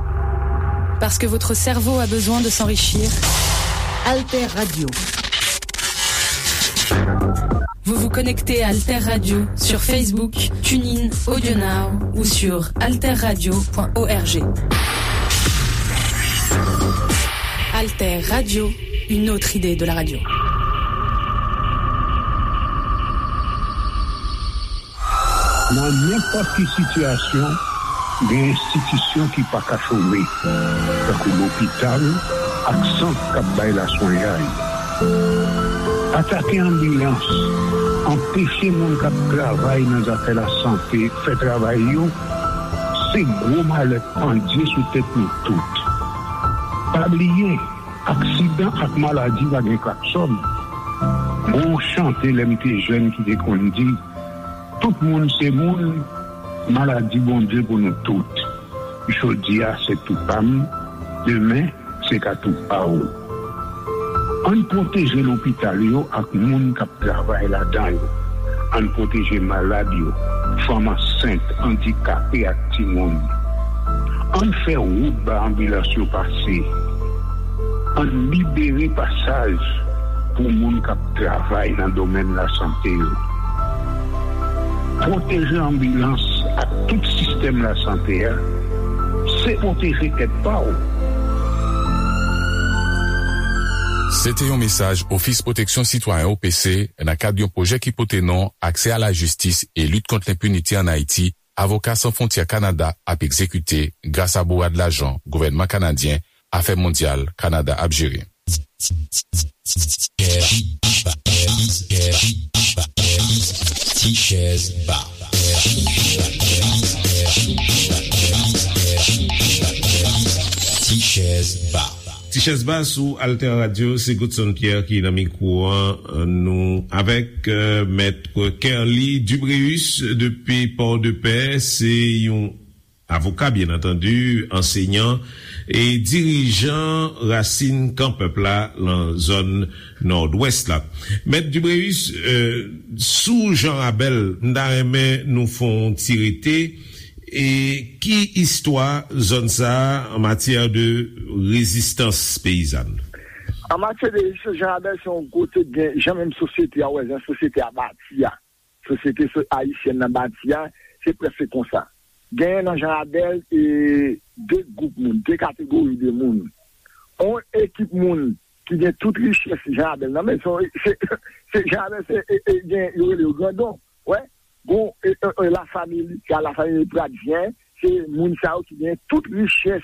Parce que votre cerveau a besoin de s'enrichir. Alter Radio. Vous vous connectez à Alter Radio sur Facebook, TuneIn, AudioNow ou sur alterradio point org. Alter Radio, une autre idée de la radio. Nan nenpòt ki sitiyasyon, gen enstitisyon ki pa ka chome, tankou lopital ak sant k ap bay laswenyay. Atake anbilans, anpeche moun k ap travay nan zafè lasante fè travay yo, se gwo malè k pandye sou tèt nou tout. Pa bliye, aksidan ak maladi pa gen klaksòn. Gon chante lè m te jèn ki te konn di, tout moun se moun, maladi Bondye pou nou tout. Jodi a se tou pa m, demen se ka tou pa w. Ann pwoteje lopital yo ak moun k ap travay ladan yo. Ann pwoteje malad yo, fanm ansent, andikape ak timoun. Ann fè wout ba anbilans yo pase. Ann libere pasaj pou moun k ap travay nan domèn lasante yo. Pwoteje anbilans ak tout sistèm lasante a, se pwoteje tèt pa w. Se te yon mesaj Ofis Pwoteksyon Sitwayen O P C nan kad yon pwojè ki pote non Aksè a la jistis e lit kont lenpinite ann Ayiti, Avoka San Fwontyè Kanada ap egzekite gras a bourad lajan gouvènman kanadyen Afè Mondyal Kanada ap jere. Tichèz Ba. Tichèz Ba. Tichèz Ba sou Alter Radio, se Godson Pierre ki nan mikwo an. Nou avèk, euh, Mèt Kerly Dubréus depi Port-de-Paix, se yon avoka, byen antandi, ansenyan e dirijan Rasin Kan Pèp la nan zòn Nòdwès la. Mèt Dubréus, euh, sou Jan Rabèl, m ta renmen nou fè yon ti rete. E ki istwa zòn sa a an matyè de rezistans peyizàn? An matyè de rezistans, Jan Rabèl se yon kote gen jan menm sosyete a, wè, jan sosyete a bati a. Sosyete so- ayisyèn nan bati a, se prèske konsa. Genyen nan Jan Rabèl e de gwoup moun, de kategori de moun. On ekip moun ki gen tout richès Jan Rabèl nan men, se, se, se Jan Rabèl, se, e, e, gen, yo rele yo grandon, wè. Gon, e, e, e, lafanmi Lika, lafanmi Pradyen, se moun sa yo ki gen tout richès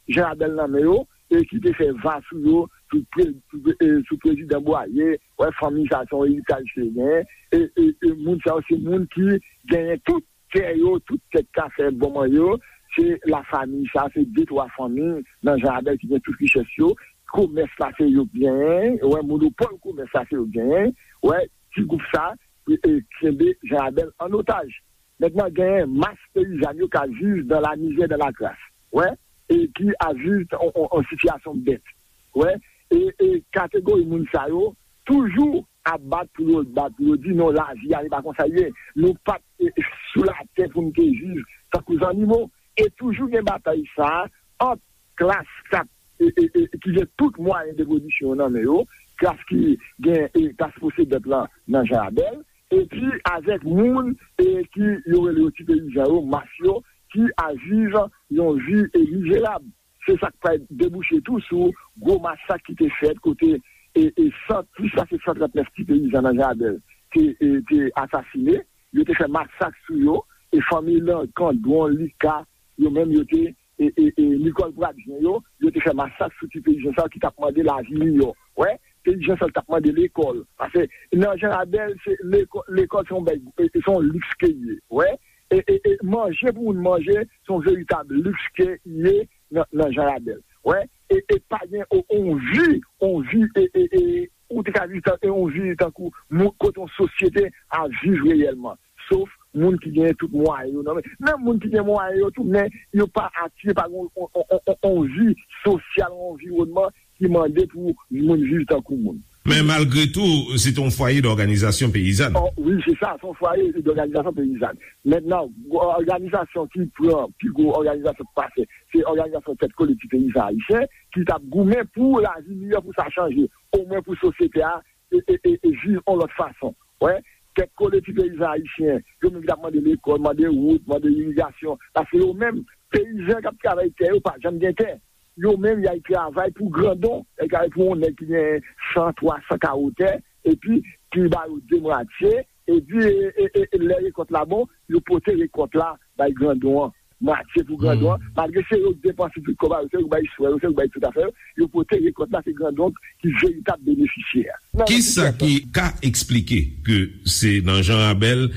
Jan Rabèl nan men yo, e ki te fè va sou yo, sou, pre, sou, e, sou prezidan Bwaye, wè, fanmi sa se yon eritaj ke genyen, e, e, e moun sa yo se moun ki genyen tout tè yo, tout tèt kafe bonman yo, se lafanmi sa, se de twa fanmi nan Jan Rabèl ki gen tout richès yo, komès la se yo k genyen, wè, monopòl komès la se yo k genyen, wè, ti gwoup sa, e, e, kenbe Jan Rabèl an otaj. Mentnan, genyen mas peyizan yo k ap viv dans la misère, dans la crasse, wè, e ki ap viv an, an, an sitiyasyon bèt, wè, e, e kategori moun sa yo toujou ap bat pou yo, bat pou yo di non, lavi a se pa konsa l ye. Nou pa t, e, sou latè pou n te viv tankou zannimo. E toujou gen batay sa a ant klas k ap, e, e, e, ki gen tout mwayen de pwodiksyon yo nan men yo, klas ki gen, e, klas posedant lan nan Jan Rabèl, epi avèk moun, e, ki yo rele yo ti peyizan yo, mas yo, ki ap viv yon vi, e, mizerab. Se sa k pral debouche tou sou gwo masak ki te fèt kote, e, e, san, plis pase san trant nèf ti peyizan nan Jan Rabèl te, e, te asasine. Yo te fè masak sou yo, e fanmi Lankan, Dwon, Lika, yo menm yo te, e, e, e, Nikòl Pradyen yo, yo te fè masak sou ti peyizan sa yo ki t ap mande lavi miyò. Wè, peyizan sa yo t ap mande lekòl. Paske nan Jan Rabèl, se lekò-, lekòl se yon bèy, e, se yon liks ke l ye. Wè, e, e, e manje pou moun manje, se yon veritab liks ke l ye nan, nan Jan Rabèl. Wè, e, e pa gen o-, on vi, on vi, e, e, e, ou te ka viv tan, e on vi tankou moun, kote yon sosyete ap viv reyèlman. Sof moun ki gen tout mwayen yo nan men. Menm moun ki gen mwayen yo tou, men yo pa atire pa gen on, on, on, on, on vi sosyal, on anviwònman ki mande pou moun viv tankou moun. Men malgre tou, se te yon fwaye dòganizasyon peyizàn. Oh, wi, se sa, se yon fwaye dòganizasyon peyizàn. Mentnan, òganizasyon ki pran pi gwo òganizasyon k pase, se òganizasyon Tèt Kole Ti Peyizan Ayisyen, ki t ap goumen pou lavi miyò, pou sa chanje, omwen pou sosyete a e, e, e, e viv yon lòt fason. Wè, Tèt Kole Ti Peyizan Ayisyen, yo menm ki t ap mande lekòl, mande wout, mande irigasyon, paske yo menm, peyizan k ap travay tè yo pa janm gen tè. Yo menm, y al travay pou grandon, y al travay pou yon nèg ki gen san, twa san kawo tè, epi ki ba yo de mwatye, epi e, e, e, e, lè rekòt la bon, yo pote rekòt la bay grandon an, mwatye pou grandon an, malgre se yo k depanse tout kòb a yo, se yo k bay swen yo, se yo k bay tout afè yo, yo pote rekòt la, se grandon ki veritab benefisyè a. Kisa ki ka eksplike ke se nan Jan Rabèl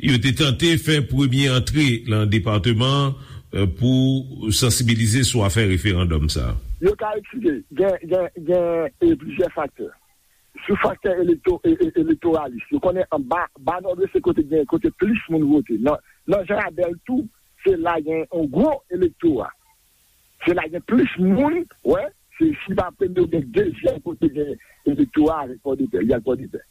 yo te tante fè premye antre nan depatman an, eh, pou sansibilize sou afè referandòm sa a? Yo ka eksplike. Gen, gen, gen e, plizyè faktè. Sou faktè elekto, e, e, elektoralis, yo konnen anba ba Nòdwès se kote gen kote plis moun vote. Nan, nan Jan Rabèl tou, se la gen yon gwo elektora. Se la gen plis moun, wè, se si pa premye ou gen dezyèm kote gen elektora avèk Pòdepè, y al Pòdepè.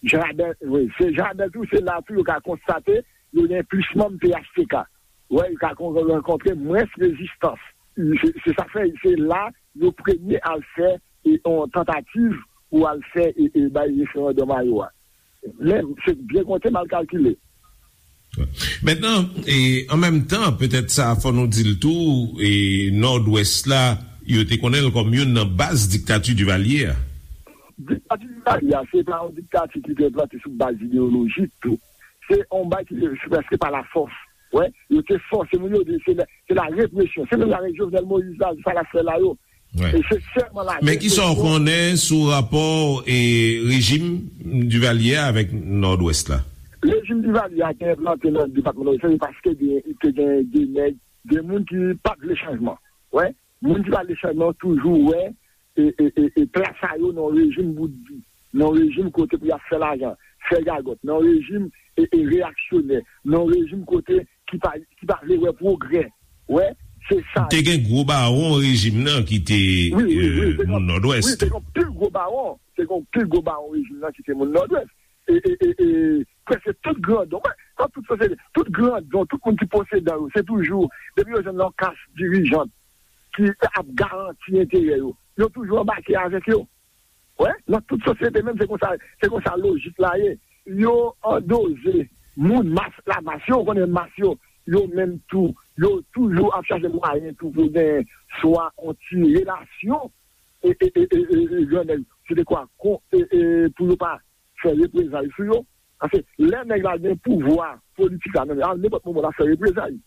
Jan Rabèl, wi, se Jan Rabèl tou, se la tou yo ka konstate yo gen plis manm P H T K. Wè, yo ka kon- rankontre mwens rezistans. Se se sa fè se la yo premye al fè e, yon tantativ pou al fè e, e bay referandòm a yo a. Men, se byen konte, mal kalkile. Mentnan, e, an menm tan, petèt sa fò nou di l tou, e, Nòdwès la, yo te konnen l kòm youn nan baz diktati Divalye a. Diktati Divalye a, se pa yon diktati ki te plante sou baz ideyolojik tou. Se yon baz ki te se prèske pa lafòs. Wè, yo te fòse moun yo, se la, se la represyon. Se menm jan avèk Jovenel Moïse la, sa l ap fè la yo. E se sèlman la represyon. Men kisa w konnen sou rapò e rejim Divalye a avèk Nòdwès la? Rejim Divalye a te enplante nan depatman Nòdwès la, se paske gen, te gen de nèg, de moun ki pa t vle chanjman. Wè, moun ki pa t vle chanjman toujou wè e, e, e, e plas a yo nan rejim bout di, nan rejim kote pou y ap fè lajan, fè gagòt, nan rejim e, e reyaksyonè, nan rejim kote ki pa, ki pa vle wè pwogrè. Wè, se sa. Te gen gwo bawon rejim nan ki te, wi, wi, wi, te gen, moun Nòdwès. Wi, te gen pil gwo bawon. Te gen pil gwo bawon rejim nan ki te moun Nòdwès. E, e, e, e, prèske tout grandon, wè, nan tout sosyete, tout grandon, tout moun ki posedan yo, se toujou, depi yo jwenn yon kas dirijant ki ap garanti enterè yo, yo toujou anbake avèk yo. Wè, nan tout sosyete menm, se konsa, se konsa lojik la ye. Yo andoze moun mas, lamas yo, ou konnen mas yo, yo menm tou, yo toujou ap chache mwayen tou pou gen swa yon ti relasyon e, e, e, e, e, e grannèg, se de kwa kon, e, e, pou yo pa fè reprezay sou yo. Paske lè nèg la gen pouvwa politik la nan men, a nenpòt moman l ap fè reprezay.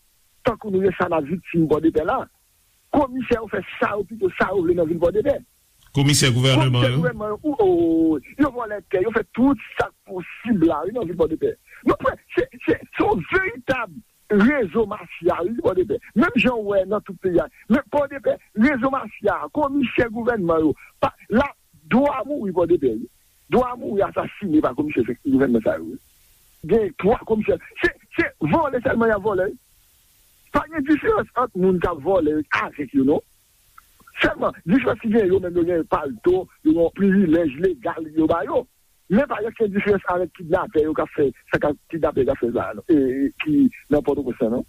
Tankou nou gen sa n ap viktim Pòdepè la, komisè yo fè sa yo pito sa yo vle nan vil Pòdepè. Komisè gouvènman yo. Komisè gouvènman yo, ou, ou, yo vòlè tè, yo fè tout sa k posib la, wi, nan vil Pòdepè. Nou prè, se, se, se yon veritab rezo mafya, wi, Pòdepè. Menm jan w wè nan tout peyi a. Men Pòdepè, rezo mafya, komisè gouvènman yo, pa, la, dwa mouri Pòdepè, wi. Dwa mouri asasine pa komisè gouvènman sa yo, wi. Gen twa komisè. Se, se vòlè sèlman y ap vòlè, wi. Pa gen diferans ant moun k ap vòlè avèk yo, non. Sèlman, diferans ki gen, yo menm yo gen palto, yo gen yon privilèj legal yo ba yo. Men pa gen okenn diferans avèk kidnapè yo k ap fè, sa k ap kidnapè yo k ap fè la, non. E, e, ki nan Pòtoprens lan, non.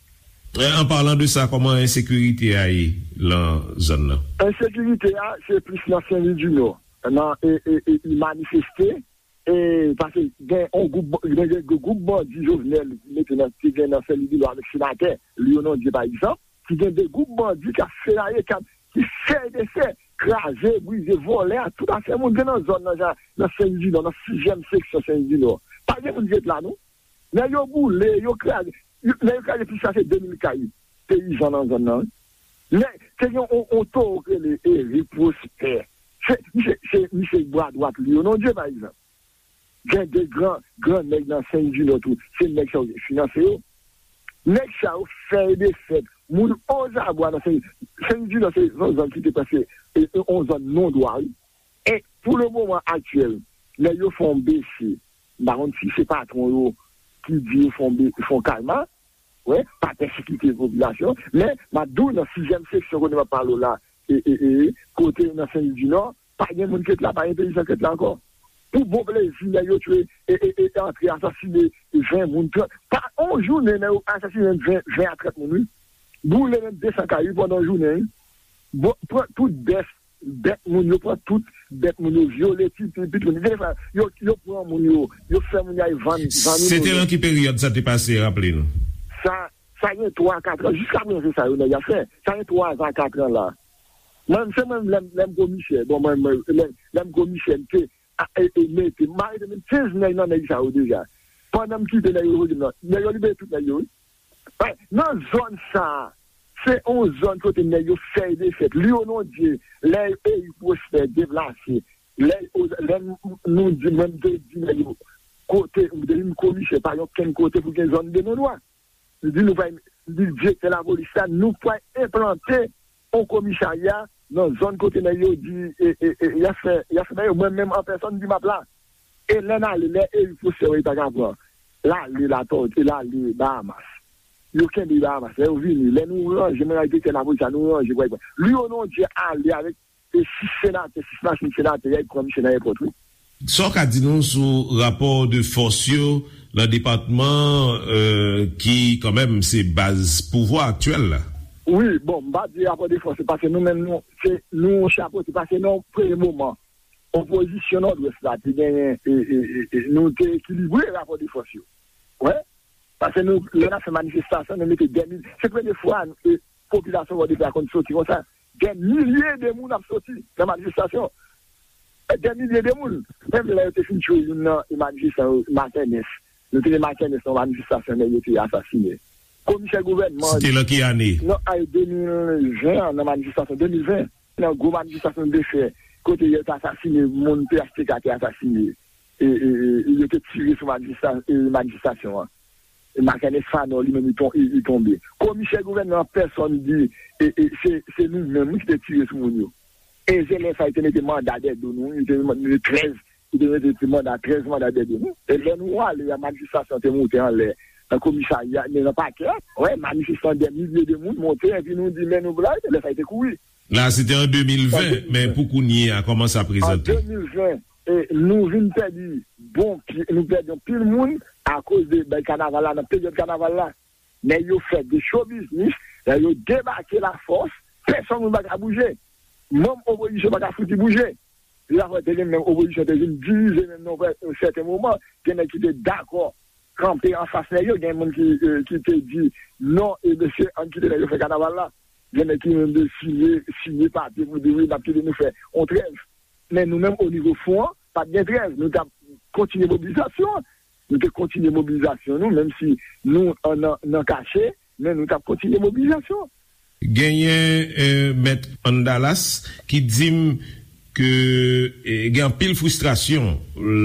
An palan de sa, kòman ensekirite a ye lan zòn nan? Ensekirite a, se plis nan Senlidinò, nan e, e, e, e manifeste, e, paske gen yon gwoup, gen, gen gwoup bandi Jovenel mete nan, te gen nan Senlidinò avèk senatè Lionel Dieu, pa egzanp, ki gen de gwoup bandi k ap fenaye, k ap, ki fè desè, kraze, brize, vòlè a tout afè moun gen nan zòn nan, jan, nan Senlidinò, nan sizyèm seksyon Senlidinò. Pa gen moun ki ret la, non. Nèg yo boule, yo kraze, yo, nèg yo kraze plis pase de mil kay peyizan nan zòn nan, wi. Nèg, te gen yon, yon towo ki rele Eric Prosper. Se, misye, se, misye bra dwat Lionel Dieu, pa egzanp. Gen de gran, gran nèg nan Senlidinò tou. Se nèg sa yo ki finanse yo. Nèg sa yo fè e defèt. Moun ozabwa nan Sen, Senlidinò se yon zòn ki te prèske, e, e, yon zòn non dwa, wi. E pou le moman aktyèl, nèg yo fè yon bese. M pa konn si se patwon yo ki di yo fè yon be, fè yon kalma, wè, pa pèsekite popilasyon. Men, m ap di w, nan sizyèm seksyon kote m ap pale w la, e, e, e, kote nan Senlidinò, pa gen moun ki ret la, pa gen peyizan ki ret la ankò. Pou bon plezi, nèg yo tchwe, e, e, e, antre asasine ven moun, trant. Pa yon jounen, nèg yo asasine ven, ven a trant moun, wi. Boule menm de san kay, wi, pandan yon jounen, wi. Bon, pran tout bèf, bèt moun yo, pran tout bèt moun yo, vyole ti, ti, pitit moun. Gen fwa, yo, yo pran moun yo, yo fè moun yo al vann, vann Se te moun yo. Nan ki peryòd sa te pase, raple nou? Sa, sa gen twa, kat an, jiska prezan se sa yo nèg yo ap fè. Sa gen twa a kat an la. Mwen, se mwen, lè m, lè m komisè, bon, mwen, mwen, lè, lè m komisè, m te a, e, e, mete, m arete menm kenz nèg nan nèg sa yo deja. Pandan m kite nèg yo, yo di m nan, nèg yo libere tout nèg yo, wi. Nan zòn sa a, se yon zòn kote nèg yo fè e defèt. Liyonondye, lè Erik Pwosfè deplase, lè, lè nou di, mwen m te di nèg yo, kote, m te di komisè, pa gen okenn kote pou gen zòn de non dwa. Li di nou pral, li di direktè lapolis la, nou pral enplante yon komisarya nan zòn kote nèg yo di, e, e, e, y ap fè, y ap fè bagay yo. Mwen menm an pèsòn di m ap la. E lè n ale, lè Erik Pwosfè wè li pa ka pran, l ale Latòti, l ale Bahamas. Yo kenbe Bahamas. Lè yo vini, lè nou ranje, mwen ak direktè lapolis la, nou ranje, pral pran. Liyonondye ale avèk e sis senatè, sis machin senatè, y al pran misye nan èpòt, wi. Sa w ka di nou sou rapò de fòs yo nan depatman, euh, ki kanmenm se baz pouvwa aktyèl la? Wi, bon, m pa di rapò de fòs, se paske nou menm, nou, se, nou chapote, paske nan yon premye moman, opozisyon Nòdwès la te genyen, e, e, e, e, nou te ekilibre rapò de fòs yo. Wi, paske nou, lè n ap fè manifestasyon, nou mete dèmil, se premye fwa, e, popilasyon Pòtoprens la konn soti konsa. Dè milye de moun ap soti nan manifestasyon. Dè milye de moun. Menm lè yo te fin tchwe youn nan manifestan yo, Makènès. Nou te gen Makènès nan manifestasyon, nèg yo te asasinen. Komisè gouvènman. Se te lan ki ane? Nan ane de mil ven an, nan manifestasyon de mil ven. Nan gwo manifestasyon de fè, kote yo te asasinen moun, P H T K te asasinen. E, e, e, e yo te tire sou manifesta-, e, manifestasyon an. E Makènès Fanò, li menm, li ton-, li, li tonbe. Komisè gouvènman an pèsòn di, e, e, se, se nou menm, wi, ki te tire sou moun yo. E se lè sa, yo te mete manda dèyè do nou, yo te mete trèz, yo te mete ti manda, trèz manda dèyè do nou. E lè nou ale, a manifestasyon te moute anlè, nan komisarya, nan, nan pakè, wè, manifestan dè milye de moun monte, epi nou di, men nou blayi, lè sa, yo te kouri. La, se te an de mil ven, men pou kounye a, kòman sa prezante? An de mil ven, e, nou vin pèdi bon pye, nou pèdi anpil moun akoz de bay kanaval la, nan peryòd kanaval la. Nèg yo fè de show business, nèg yo debake lafòs, pèsonn moun pa ka bouje. Manm opozisyon pa ka fouti bouje. Lafwa te gen menm opozisyon te vin divize menm nan yon sèten moman, gen nèg ki te dakò kanpe anfas nèg yo, gen moun ki, e, ki te di, "Non, e mesye, ann kite nèg yo fè kanaval la." Gen nèg ki menm te siyen, siyen papye pou di, "Wi, n ap kite nou fè yon trèv." Men nou menm, o nivo fon an, pa t gen trèv. Nou t ap kontinye mobilizasyon an. Nou te kontinye mobilizasyon nou, menm si nou an, nan, nan kache, men nou t ap kontinye mobilizasyon. Genyen, eh, Mèt Andalas ki di m ke, eh, gen anpil fristrasyon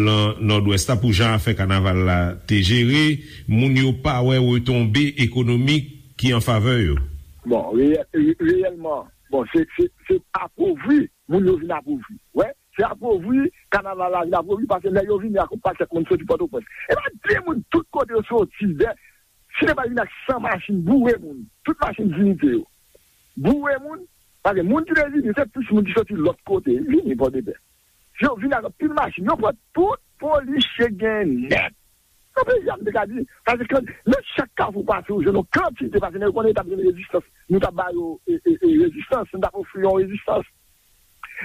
lan Nòdwès la pou jan afè kanaval la te jere. Moun yo pa wè retonbe ekonomik ki an favè yo. Bon, reyè-, re-, reyèlman, bon, se, se, se apovri, moun yo vin apovri. Wè, se apovri, kanaval la vin apovri, paske lè yo vini ak yon pakèt moun soti Pòtoprens. E pa de moun tout kote yo soti, dè, si yo pa vin ak san machin boure moun, tout machin Dignité yo, boure moun, paske moun ki te vini, se plis moun ki soti lòt kote, vini Pòtoprens. Yo vin ak anpil machin, yo pran tout polisye gen nèt. Nan peyi a, m te ka di, paske kan, nan chak kafou pase, ou jwenn yon kantite, paske nèg yo konnen yo t ap jwenn rezistans, nou t ap ba yo, e, e, e, rezistans, nou t ap ofri yo yon rezistans.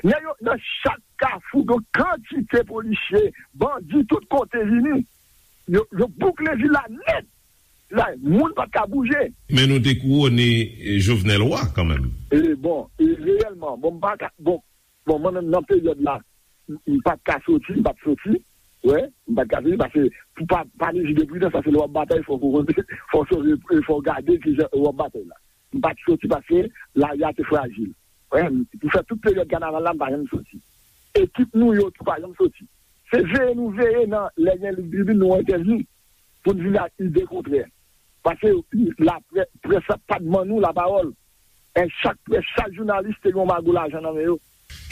Nèg yo, nan chak kafou, gen yon kantite polisye, bandi, tout kote vini. Yo, yo boukle vil la nèt. La, moun pa t ka bouje. Men nou te kouwone, eh, Jovenel wa kanmenm. E bon, e reyèlman, bon, m pa ka, bon, bon, mwen menm nan peryòd la, m, m pa t ka soti, m pa t soti. Wè, m pa t ka soti, paske pou pa, pa mezi de pridans, paske lè w ap batay, fò w, fò w sonje, fò w gade kijan w ap batay la. M pa t soti paske lari a te frajil. Wè, m, pou fè tout peryòd kanaval la, m pa janm soti. Ekip nou yo tou pa janm soti. Se veye nou veye nan lè gen lig tribin nou entèvyou pou n vin ak ide kontrè. Paske laprè-, près la pa t ban nou lapawòl. E chak près, chak jounalis te gen yon mago lajan nan men yo.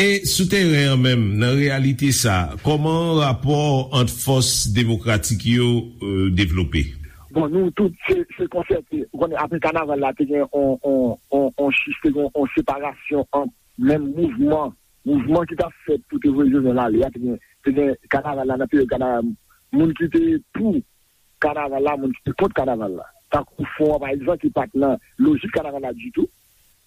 E sou teren an menm, nan reyalite sa, kòman rapò ant fòs demokratik yo, euh, devlope? Bon, nou tout, se, se konsète. Ou konnen, apre kanaval la, te gen on, on, on, on chif, te gen on separasyon ant menm mouvman, mouvman ki t ap fèt pou te voye Jovenel ale a, te gen te gen kanaval la nan peryòd kanaval, moun ki te pou kanaval la, moun ki te kont kanaval la. Tankou Fwon an, pa egzanp, ki pa t nan lojik kanaval la ditou.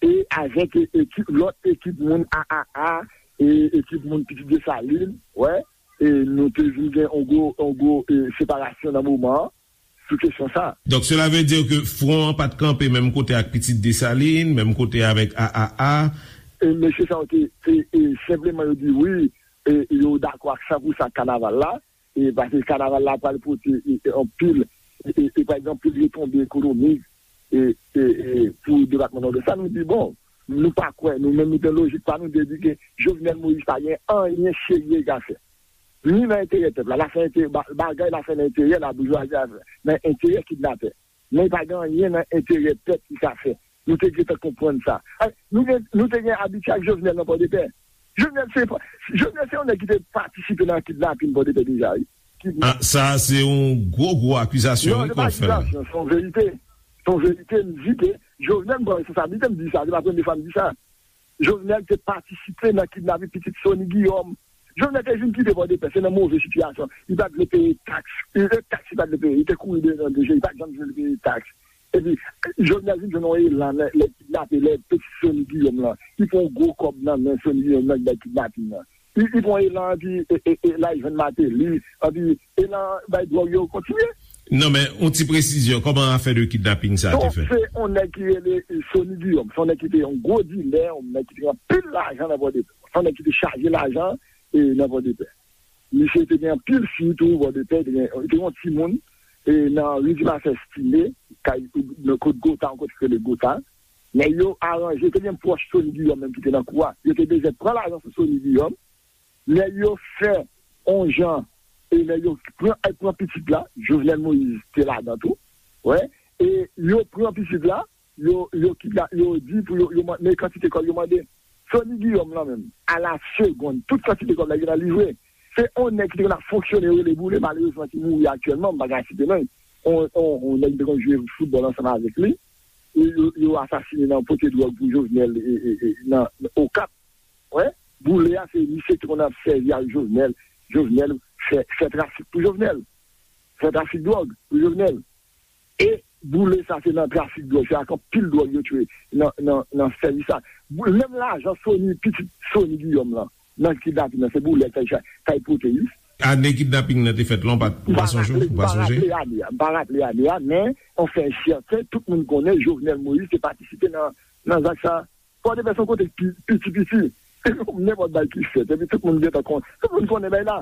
E avèk e, ekip, lòt ekip moun A A A, e ekip moun Pitit Desalin, wè, e nou te vin gen yon gwo, yon gwo e, separasyon nan moman an sou kesyon sa. Donk, cela veut dire que Fwon an pa t kanpe menm kote ak Pitit Desalin, menm kote avèk A A A. E mesye sa yo te, te e, senpleman yo di wi, e yo dakò ak san pou san ak kanaval la, e paske kanaval la pral pote e, e, anpil, e, e, e, pa egzanp, anpil retonbe ekonomik e, e, e, pou depatman Nòdès la. Nou di, bon, nou pa kwè, nou menm nou gen lojik pa nou de di ke Jovenel Moïse pa gen anyen serye li ka fè. Ni nan enterè pèp la, l ap fè enterè, ba- bagay l ap fè nan enterè laboujwazi a, nan enterè kidnapè. Men li pa gen anyen nan enterè pèp li ka fè. Nou te gentan konprann sa. Ay, nou gen, nou te gen abitye ak Jovenel nan Pòdepè. Jovenel se, Jovenel se yon nèg ki te patisipe nan kidnapin Pòdepè deja, wi. Kidnap- Ah, sa se yon gwo, gwo akizasyon, Non, wi, se pa kòfè. Akizasyon, se yon verite. Se yon verite, m di ke Jovenel pran responsablite, m di sa, se pa premye fwa m di sa. Jovenel te patisipe nan kidnapin pitit Sony Guillaume. Jovenel te vin kite Pòdepè, se nan move sitiyasyon. Li pa t vle peye taks. Li te taks, li pa t vle peye. Li te kouri devan D G, li pa t janm vle peye taks. Epi, Jovenel vin jwenn yon elan lè, lè kidnape, lè pitit Sony Guillaume lan. Li pran yon gwo kòb nan men Sony Guillaume nan ki bay kidnapin nan. Li, li pran elan, epi e, e, e, la, li jwenn Martelly, epi elan bay dwòg yo kontinye. Non, men, yon ti presizyon, kòman afè de kidnaping sa te Donk, fèt? Se yon nèg ki rele e, Sony Guillaume. Se yon nèg ki te yon gwo dilè, yon nèg ki te gen anpil lajan nan Pòdepè. Se yon nèg ki te chaje lajan e, nan Pòdepè. Misye te gen anpil fi tou, Pòdepè, te gen, te gen yon timoun e, nan Ri Dimasè Stile, kay, nan kot Gota, yon kote ki rele Gota. Nèg yo aranje, te gen pwòch Sony Guillaume menm ki te nan kou a. Yo te bezwen pran lajan sou Sony Guillaume. Nèg yo fè on jan, e nèg yo pran, al pran pitit la, Jovenel Moïse te ladan tou. Wè, e yo pran pitit la, yo, yo kidna-, yo di pou yo, yo mande kantite kòb yo mande. Sony Guillaume lan menm, a la segonn, tout kantite kòb la gentan livre. Se on nèg ki te konn ap fonksyone, yo rele Boule, malerezman ki mouri aktyèlman, m pa ka site non. On, on, on nèg ki te konn jwe foutbòl ansanm avèk li. E yo, yo asasine nan pote dwòg pou Jovenel e, e, e, nan, nan Okap. Wè, Boule a se misye ki konn ap sèvi ak Jovenel. Jovenel fè, fè trafik pou Jovenel. Fè trafik dwòg pou Jovenel. E Boule sa se nan trafik dwòg, se ak anpil dwòg yo tchwe nan, nan, nan sèvis sa. Bou-, menm lajan Sony, pitit Sony Guillaume lan, nan kidnapin nan, se Boule k al cha-, k al pote, wi. Ane kidnaping nan te fèt la, ou pa, ou pa sonje, ou pa sonje? M pa raple ane a, m pa raple ane a, men, anfen, sèten, tout moun konnen Jovenel Moïse te patisipe nan, nan zak sa. Pòdepè se yon kote ki piti, piti. Nenpòt bagay ki fèt, epi tout moun gentan kon-, tout moun konnen bagay la.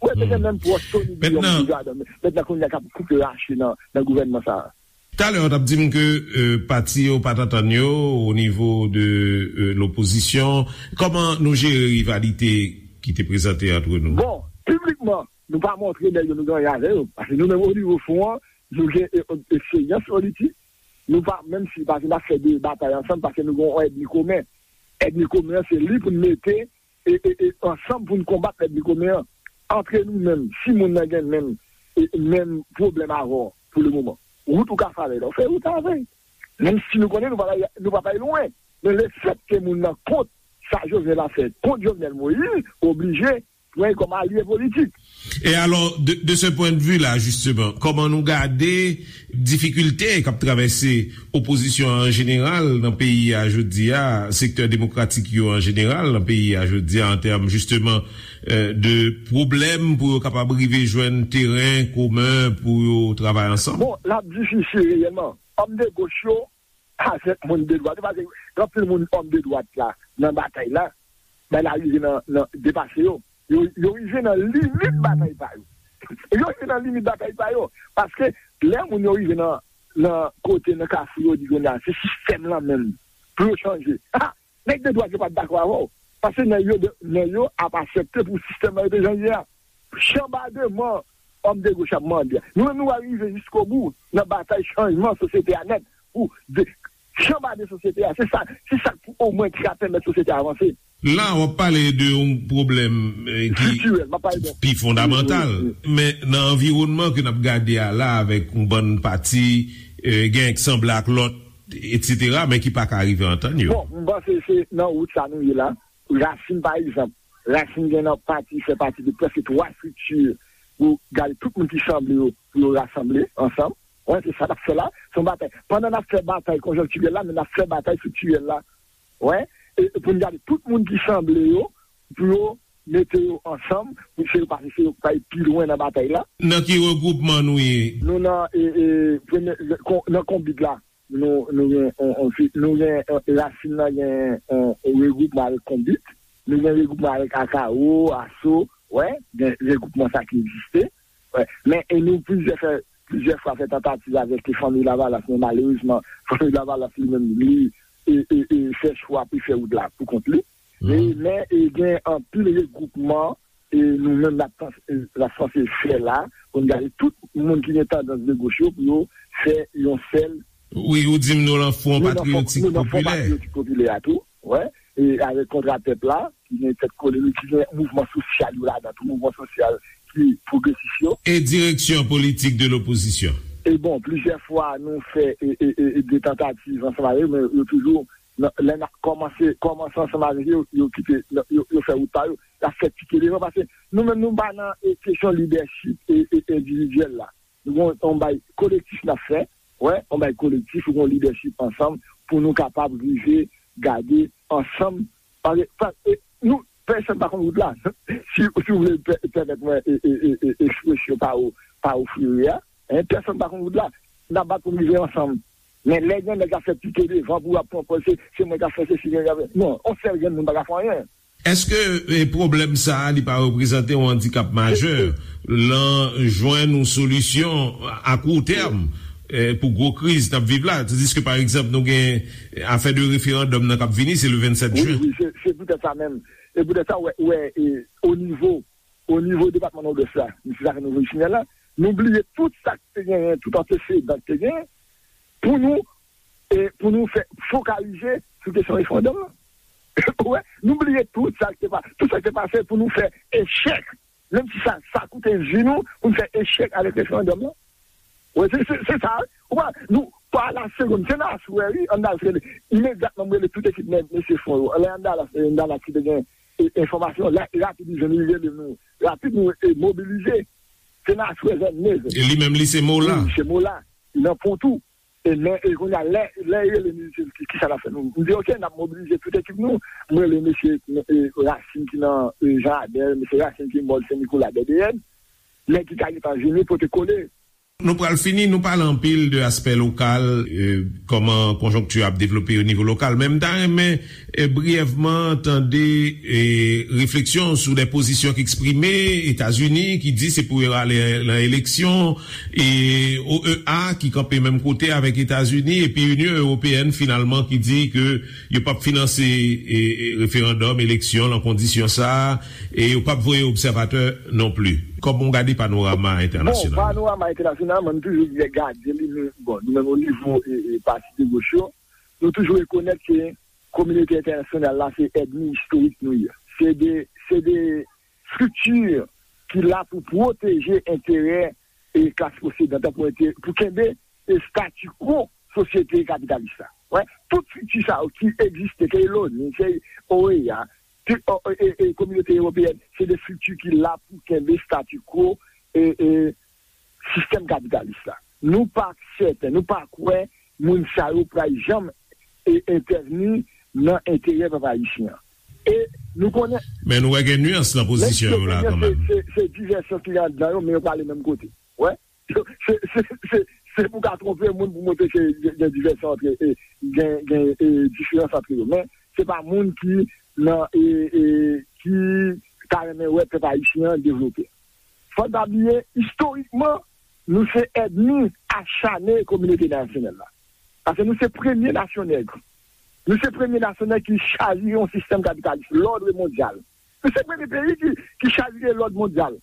Ou wè, te gen menm pwòch Sony Guillaume ki gadon. Mentnan, kounye a k ap koupe rache nan, nan gouvènman sa a. Talè, w t ap di m ke, euh, pati yo pa t antann yo o nivo de, euh, lopozisyon. Kòman nou jere rivalite ki te prezante ant nou? Bon, piblikman, nou pa montre nèg yo nou gen anyen avè yo. Paske nou menm o nivo fwon an, nou gen e, e, eksperyans politik. Nou pa, menm si, paske n ap fè de batay ansanm, paske nou gen yon ènmi komen. Ènmi komen an, se li pou n mete e, e, e, ansanm pou n konbat ènmi komen an. Antre nou menm, si moun nan gen menm, e, menm pwoblèm avè w pou le moman, wout ou ka fè avè l, fè wout avè l. Menm si nou konnen nou pa, nou pa pral lwen. Men lefètke moun nan kont sa Jovenel ap fè, kont Jovenel Moïse, oblije pran l kòm alye politik. E alò, de, de ce point de vue-là, justement, kòman nou gade difikilte k ap travèse opozisyon an jeneral nan peyi a jodi a, sektè demokratik yo an jeneral nan peyi a jodi a, an tèm, justement, euh, de pwoblèm pou yo kapab rive jwenn teren komen pou yo travay ansanm? Bon, l ap difisil reyèlman. Òm de goch yo, avèk moun de dwat yo, paske gen anpil moun òm de dwat la nan batay la, men la rive nan, nan depase yo. Yo, yo rive nan limit batay pa yo. Yo rive nan limit batay pa yo. Paske lè moun yo rive nan, nan kote, nan kafou, yo di kounye a, se sistèm lan menm pou yo chanje. Ha! Nèg de dwat yo pa t dakò avè w. Paske nèg yo, nèg yo ap aksepte pou sistèm nan rete jan l ye a. Chanbademan òm de goch ap mande a. Nou menm, nou va rive jiskobou nan batay chanjman sosyete a nèt. Pou de, chanbaden sosyete a. Se sa, se sa pou omwen ki ka pèmèt sosyete a avanse. La, w ap pale de yon pwoblèm, eh, ki pi fondamantal. Men nan anviwònman ke n ap gade a la, avèk yon bann pati, eh, gen k sanble ak lòt, etsetera, men ki pa ka rive antann yo. Bon, m panse se nan wout sa nou ye la. Rasin, pa egzanp, Rasin gen nan pati, fè pati de prèske twa estrikti pou gade tout moun ki sanble yo, pou yo rasanble ansanm. Wè, se sa n ap fè la. Se yon batay. Pandan n ap fè batay konjonktirèl la, men n ap fè batay estriktirèl la. Wè, e, e pou n gade tout moun ki sanble yo, pou yo mete yo ansanm, pou se yo pase, se yo k pral pi lwen nan batay la. Nan ki regwoupman nou ye? Nou nan, e, e, premye, kon- nan Konbit la. Nou, nou gen, on, on, fi- nou gen, e, Rasin nan gen, on, on regwoupman avèk Konbit. Nou gen regwoupman avèk Akawo, Aso, wè, gen regwoupman sa ki egziste. Wè. Men, e nou plizyè fè, plizyè fwa fè tantativ avèk Fanmi Lavalas, men malerezman, Fanmi Lavalas li menm, li, e, e, e, fè chwa pou fè wout la pou kont li. E, men, e, gen anpil regwoupman, e, nou menm n ap tans- e, n ap sanse fè la, pou n gade tout moun ki gen tandans de goch yo, pou yo fè yon sèl Wi, ou di m nou lan Fwon Patriyotik Popilè. Patriyotik Popilè a tou, wè, e avèk Kontra Pèp la, ki gen tèt kole li, ki gen mouvman sosyal yo ladan, tou mouvman sosyal ki pwogresis yo. E direksyon politik de lopozisyon. E bon, plizyè fwa nou fè e, e, e, e de tantativ ansanm avè yo, men yo toujou, nan- lè n ap kòmanse, kòmanse ansanm avèk yo, yo kite, yo, yo fè wout pa yo, y ap fè pike devan, paske nou menm nou pa nan e, kesyon lidèchip e, e, endividyèl la. Nou gon on bay kolektif n ap fè, wè, on bay kolektif, ou gon lidèchip ansanm pou nou kapab rive gade ansanm. Paske, pa- e, nou, pèsonn pa konn wout la. Si, si w vle pè- pèmèt mwen e, e, e, e, ekspresyon pa ou, pa ou frere a, en, pèsonn pa konn wout la. N ap bat pou n rive ansanm. Men lè gen nèg ap fè pike devan pou ap pran pòz, se, se mwen k ap fè sesi, mwen k ap fè. Non, on sèl grenn moun pa ka fè anyen. Èske e, pwoblèm sa a li pa reprezante yon andikap majè lan jwenn yon solisyon a kou tèm e, pou gwo kriz n ap viv la? Tandiske, pa egzanp, nou gen afè de referandòm nan k ap vini, se le vennsèt wi, jen. Wi, se, se poutèt sa menm. E poutèt sa, wè, wè, e, o nivo, o nivo depatman Nòdwès la, se sa fè nou vin final la, nou bliye tout sa k te genyen, tout antesedan k te genyen, pou nou, e, pou nou fè fokalize sou kesyon referandòm nan. Wè, nou bliye tout sa k te pa- tout sa k te pase pou nou fè echèk. Menm si sa, sa koute vi nou, pou nou fè echèk avèk referandòm nan. Wè, se, se, se sa, wi. Ou pa, nou, pa la segonn, se nan aswè, wi, ann al rele. Imedyatman, m rele tout ekip men- mesye Fwon yo. Lè ann al, ann al ki te gen e, enfòmasyon, la, rapid, li jwenn, li rele nou. Rapid, nou e, mobilize. Se nan aswè, vennde zè. E li menm, li se Mola. Wi, se Mola. Li nan Pon tou. E men, e kounye a, lè, lè e rele nou, li di, ki, ki sa n ap fè nou? M di, oke, n ap mobilize tout ekip nou. M rele mesye, e, Rasin ki nan, e, Jan Adèl, mesye Rasin ki mòd Sen Nikola, D D N. Nèg ki ka gentan vini pote kole. Nou pral fini, nou pale anpil de aspè lokal, e, kòman konjonkti ap devlope o nivo lokal. Men m ta renmen, e, briyèvman tande, e, refleksyon sou de pozisyon ki eksprime, Etazini ki di se pou yo ale nan eleksyon, e O E A ki kanpe menm kote avèk Etazini, epi Inyon Ewopeyèn finalman ki di ke yo p ap finanse, e, e, referandòm, eleksyon, lan kondisyon sa a, e yo p ap voye obsèvatè non pli. Kòman w gade panorama entènasyonal? Bon, panorama entènasyonal, mwen, m toujou gade li, men, bon, nou menm o nivo, e, e, pati de goch yo, nou toujou rekonèt ke kominote entènasyonal la, se ènmi istorik nou ye. Se de, se de estrikti ki la pou pwoteje enterè e klas posedan, pou ente- pou kenbe e stati quo sosyete kapitalis la. Wè, tout estrikti sa yo ki egziste, ke loni, ke O E A, ke, o, e, e, e kominote ewopeyèn, se de estrikti ki la pou kenbe stati quo e, e sistèm kapitalis la. Nou pa sèten, nou pa kwè moun sa yo pral janm e, entèvni nan enterè pèp ayisyen an. E nou konnen Men nou wè gen nyans nan pozisyon yo la kanmenm. Se, se, se divèsyon ki anndan yo, men yo prale menm kote. Wè. Se, se, se, se pou ka twonpe moun pou montre ke gen, gen divèsyon antre, e, gen, gen, e, diferans antre yo. Men se pa moun ki nan, e, e, ki ta renmen wè pèp ayisyen an devlope. Fò n pa bliye, istorikman, nou se ènmi achane kominote entènasyonal la. Paske nou se premye nasyon nèg. Nou se premye nasyon nèg ki chavire yon sistèm kapitalis, lòd mondyal. Nou se premye peyi ki, ki chavire lòd mondyal.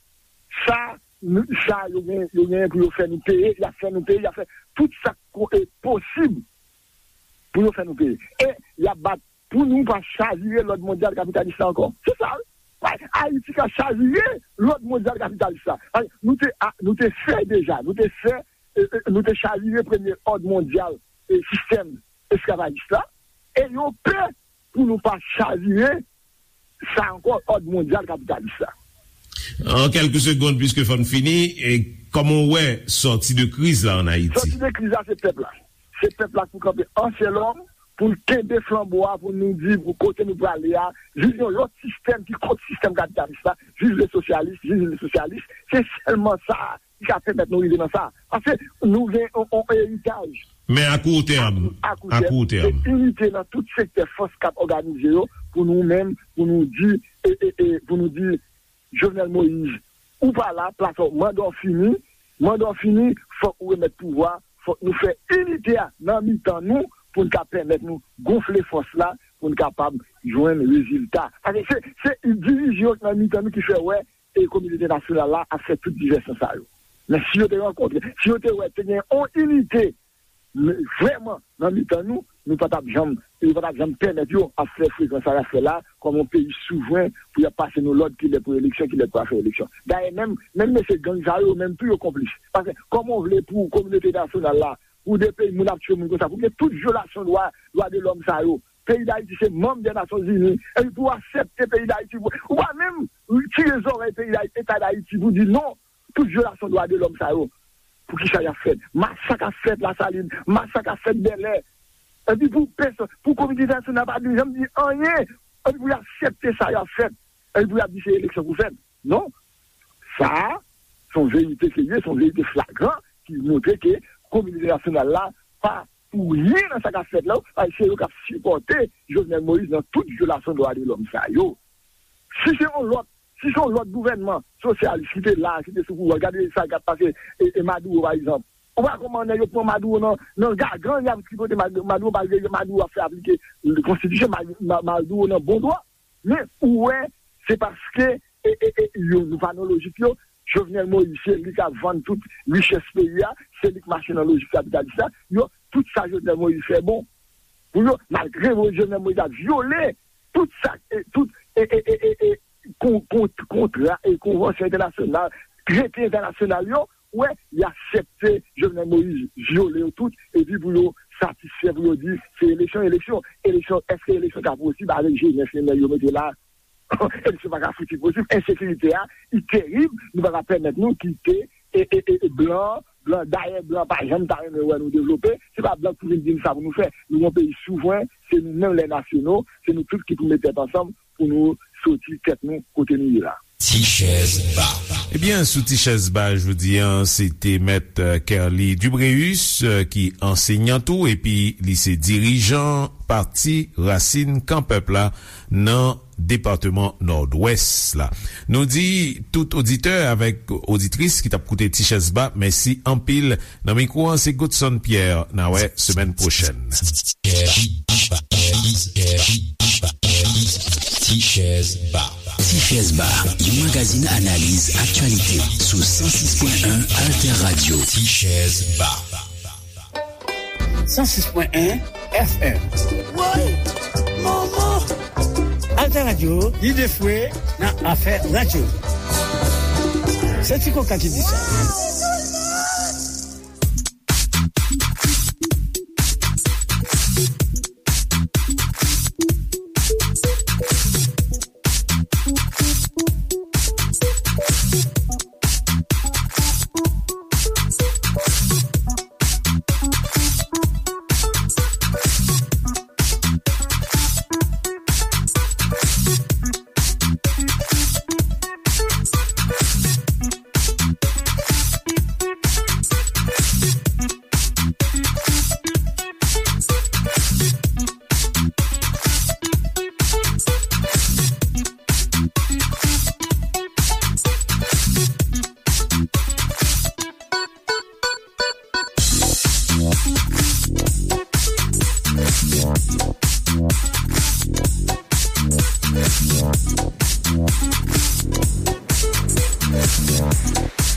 Sa, nou, sa yo gen, yo gen pou yo fè nou peye, y ap fè nou peye, y ap fè tout sa k e, posib pou yo fè nou peye. E y ap bat pou nou pa chavire lòd mondyal kapitalis la ankò. Se sa, wi. Ayiti ka chavire lòd mondyal kapitalis la. Ay, nou te, a, nou te fè deja, nou te fè, e, e, nou te chavire premye òd mondyal e sistèm esklavajis la. E yo pè pou nou pa chavire sa ankò, òd mondyal kapitalis la. An kèlke segond, piske fò n fini, e kòman w wè sòti de kriz la ann Ayiti? Sòti de kriz la, se pèp la. Se pèp la k pou kanpe an sèl òm, pou n kenbe flanbo a, pou nou di pou kote nou prale a, viv yon lòt sistèm ki kont sistèm kapitalis la, viv le sosyalis, viv le sosyalis. Se sèlman sa ki ka pèmèt nou rive nan sa. Paske nou gen yon, yon eritaj. Men a kou tèm, a kou tèm, se inite nan tout sektè fòs k ap òganize yo pou nou menm, pou nou di, e, e, e, pou nou di, Jovenel Moïse, ou pa la, plas ou, manda w fini, manda w fini, fòk ou remèt pouvwa, fòk nou fè inite a nan mitan nou pou n ka pèmèt nou gonfle fòs la, pou n kapab jwenn rezilta. Paske se, se divizyon nan mitan nou ki fè wè e kominote entènasyonal la ap fè tout divèsyon sa yo. Men si yo te rankontre, si yo te wè te gen yon inite men vrèman nan mitan nou, nou pa t ap janm, yo pa t ap janm pèmèt yo ap fè frekans sa y ap fè la, kòm yon peyi souvren, pou y ap pase nou lòd kilè pou eleksyon, kilè pou afè eleksyon. Dayè, menm, menm mesye gang sa yo, menm tou yo konplis. Paske, kòman w vle pou kominote entènasyonal la, pou de peyi moun ap tchwe moun konsa, pou gen tout vyolasyon dwa, dwa de lòm sa yo, peyi Dayiti se manm de Nasyonzini, epi pou w aksepte peyi Dayiti, ou pa menm tire zòrèy peyi Dayiti, Eta Dayiti, pou di non, tout vyolasyon dwa de lòm sa yo, poukisa y ap fèt? Masak ap fèt Lasalin, masak ap fèt Bèlè. Epi pou pèsonn, pou kominote entènasyonal pa di, janm di anyen, epi pou y aksepte sa y ap fèt, epi pou y ap di se eleksyon pou fèt. Non. Sa a, se yon verite ke l ye, se yon verite flagran ki montre ke kominote entènasyonal la pa pou ryen nan sa k ap fèt la, paske se yo k ap sipòte Jovenel Moïse nan tout vyolasyon dwa de lòm sa yo. Si se yon lòt, si se yon lòt gouvènman sosyalis ki te la, ki te sou pouvwa, gade sa k ap pase, e, e Maduro, pa egzanp. Ou pa konprann nèg yo pran Maduro nan, nan gagann, y ap tripote Mad-, Maduro, malgre Maduro ap fè aplike konstitisyon, Mad-, Ma-, Maduro nan bon dwa. Men ou wè, se paske, e, e, e, yo, nou pa nan lojik yo, Jovenel Moïse, se li k ap vann tout richès peyi a, se li k mache nan lojik kapitalis la, yo, tout sa Jovenel Moïse fè bon. Pou yo, malgre Jovenel Moïse ap vyole tout sa, e, tout, e, e, e, e, e, kon-, kon-, kontra e konvansyon entènasyonal, trete entènasyonal yo, wè, y aksepte Jovenel Moïse vyole yo tout, epi pou yo satisfè, pou yo di, se eleksyon, eleksyon, eleksyon, èske eleksyon ka posib avèk jenès nèg yo mete la? Eleksyon pa ka fouti posib, ensekirite a, li terib, nou pa ka pèmèt nou kite, e, e, e, e blan, blan, dayè blan pa janm ta renmen wè nou devlope, se pa blan k pou vin di n sa pou nou fè, nou yon peyi souvren, se nou menm lè nasyonal, se nou tout ki pou met tèt ansanm, pou nou soti tèt nou kote nou ye la. Ti chèz ba. Ebyen, sou Ti chèz ba jodi a, se te mèt, euh, Kerly Dubréus, euh, ki ansenyan tou, epi li se dirijan Pati Rasin Kan Pèp la nan depatman Nòdwès la. Nou di tout oditè avèk oditris ki t ap koute Ti chèz ba, mèsi anpil. Nan mikwo an, se Godson Pierre. N a wè semèn pwochèn. Ti chèz ba. Ti chèz ba, yon magazin analiz aktyalite sou san sis pwen en Alter Radio. Ti chèz ba. San sis pwen en F M. Woy! Manman! Alter Radio, lide fwe nan afè radyo. Se Ti Koka ki di sa.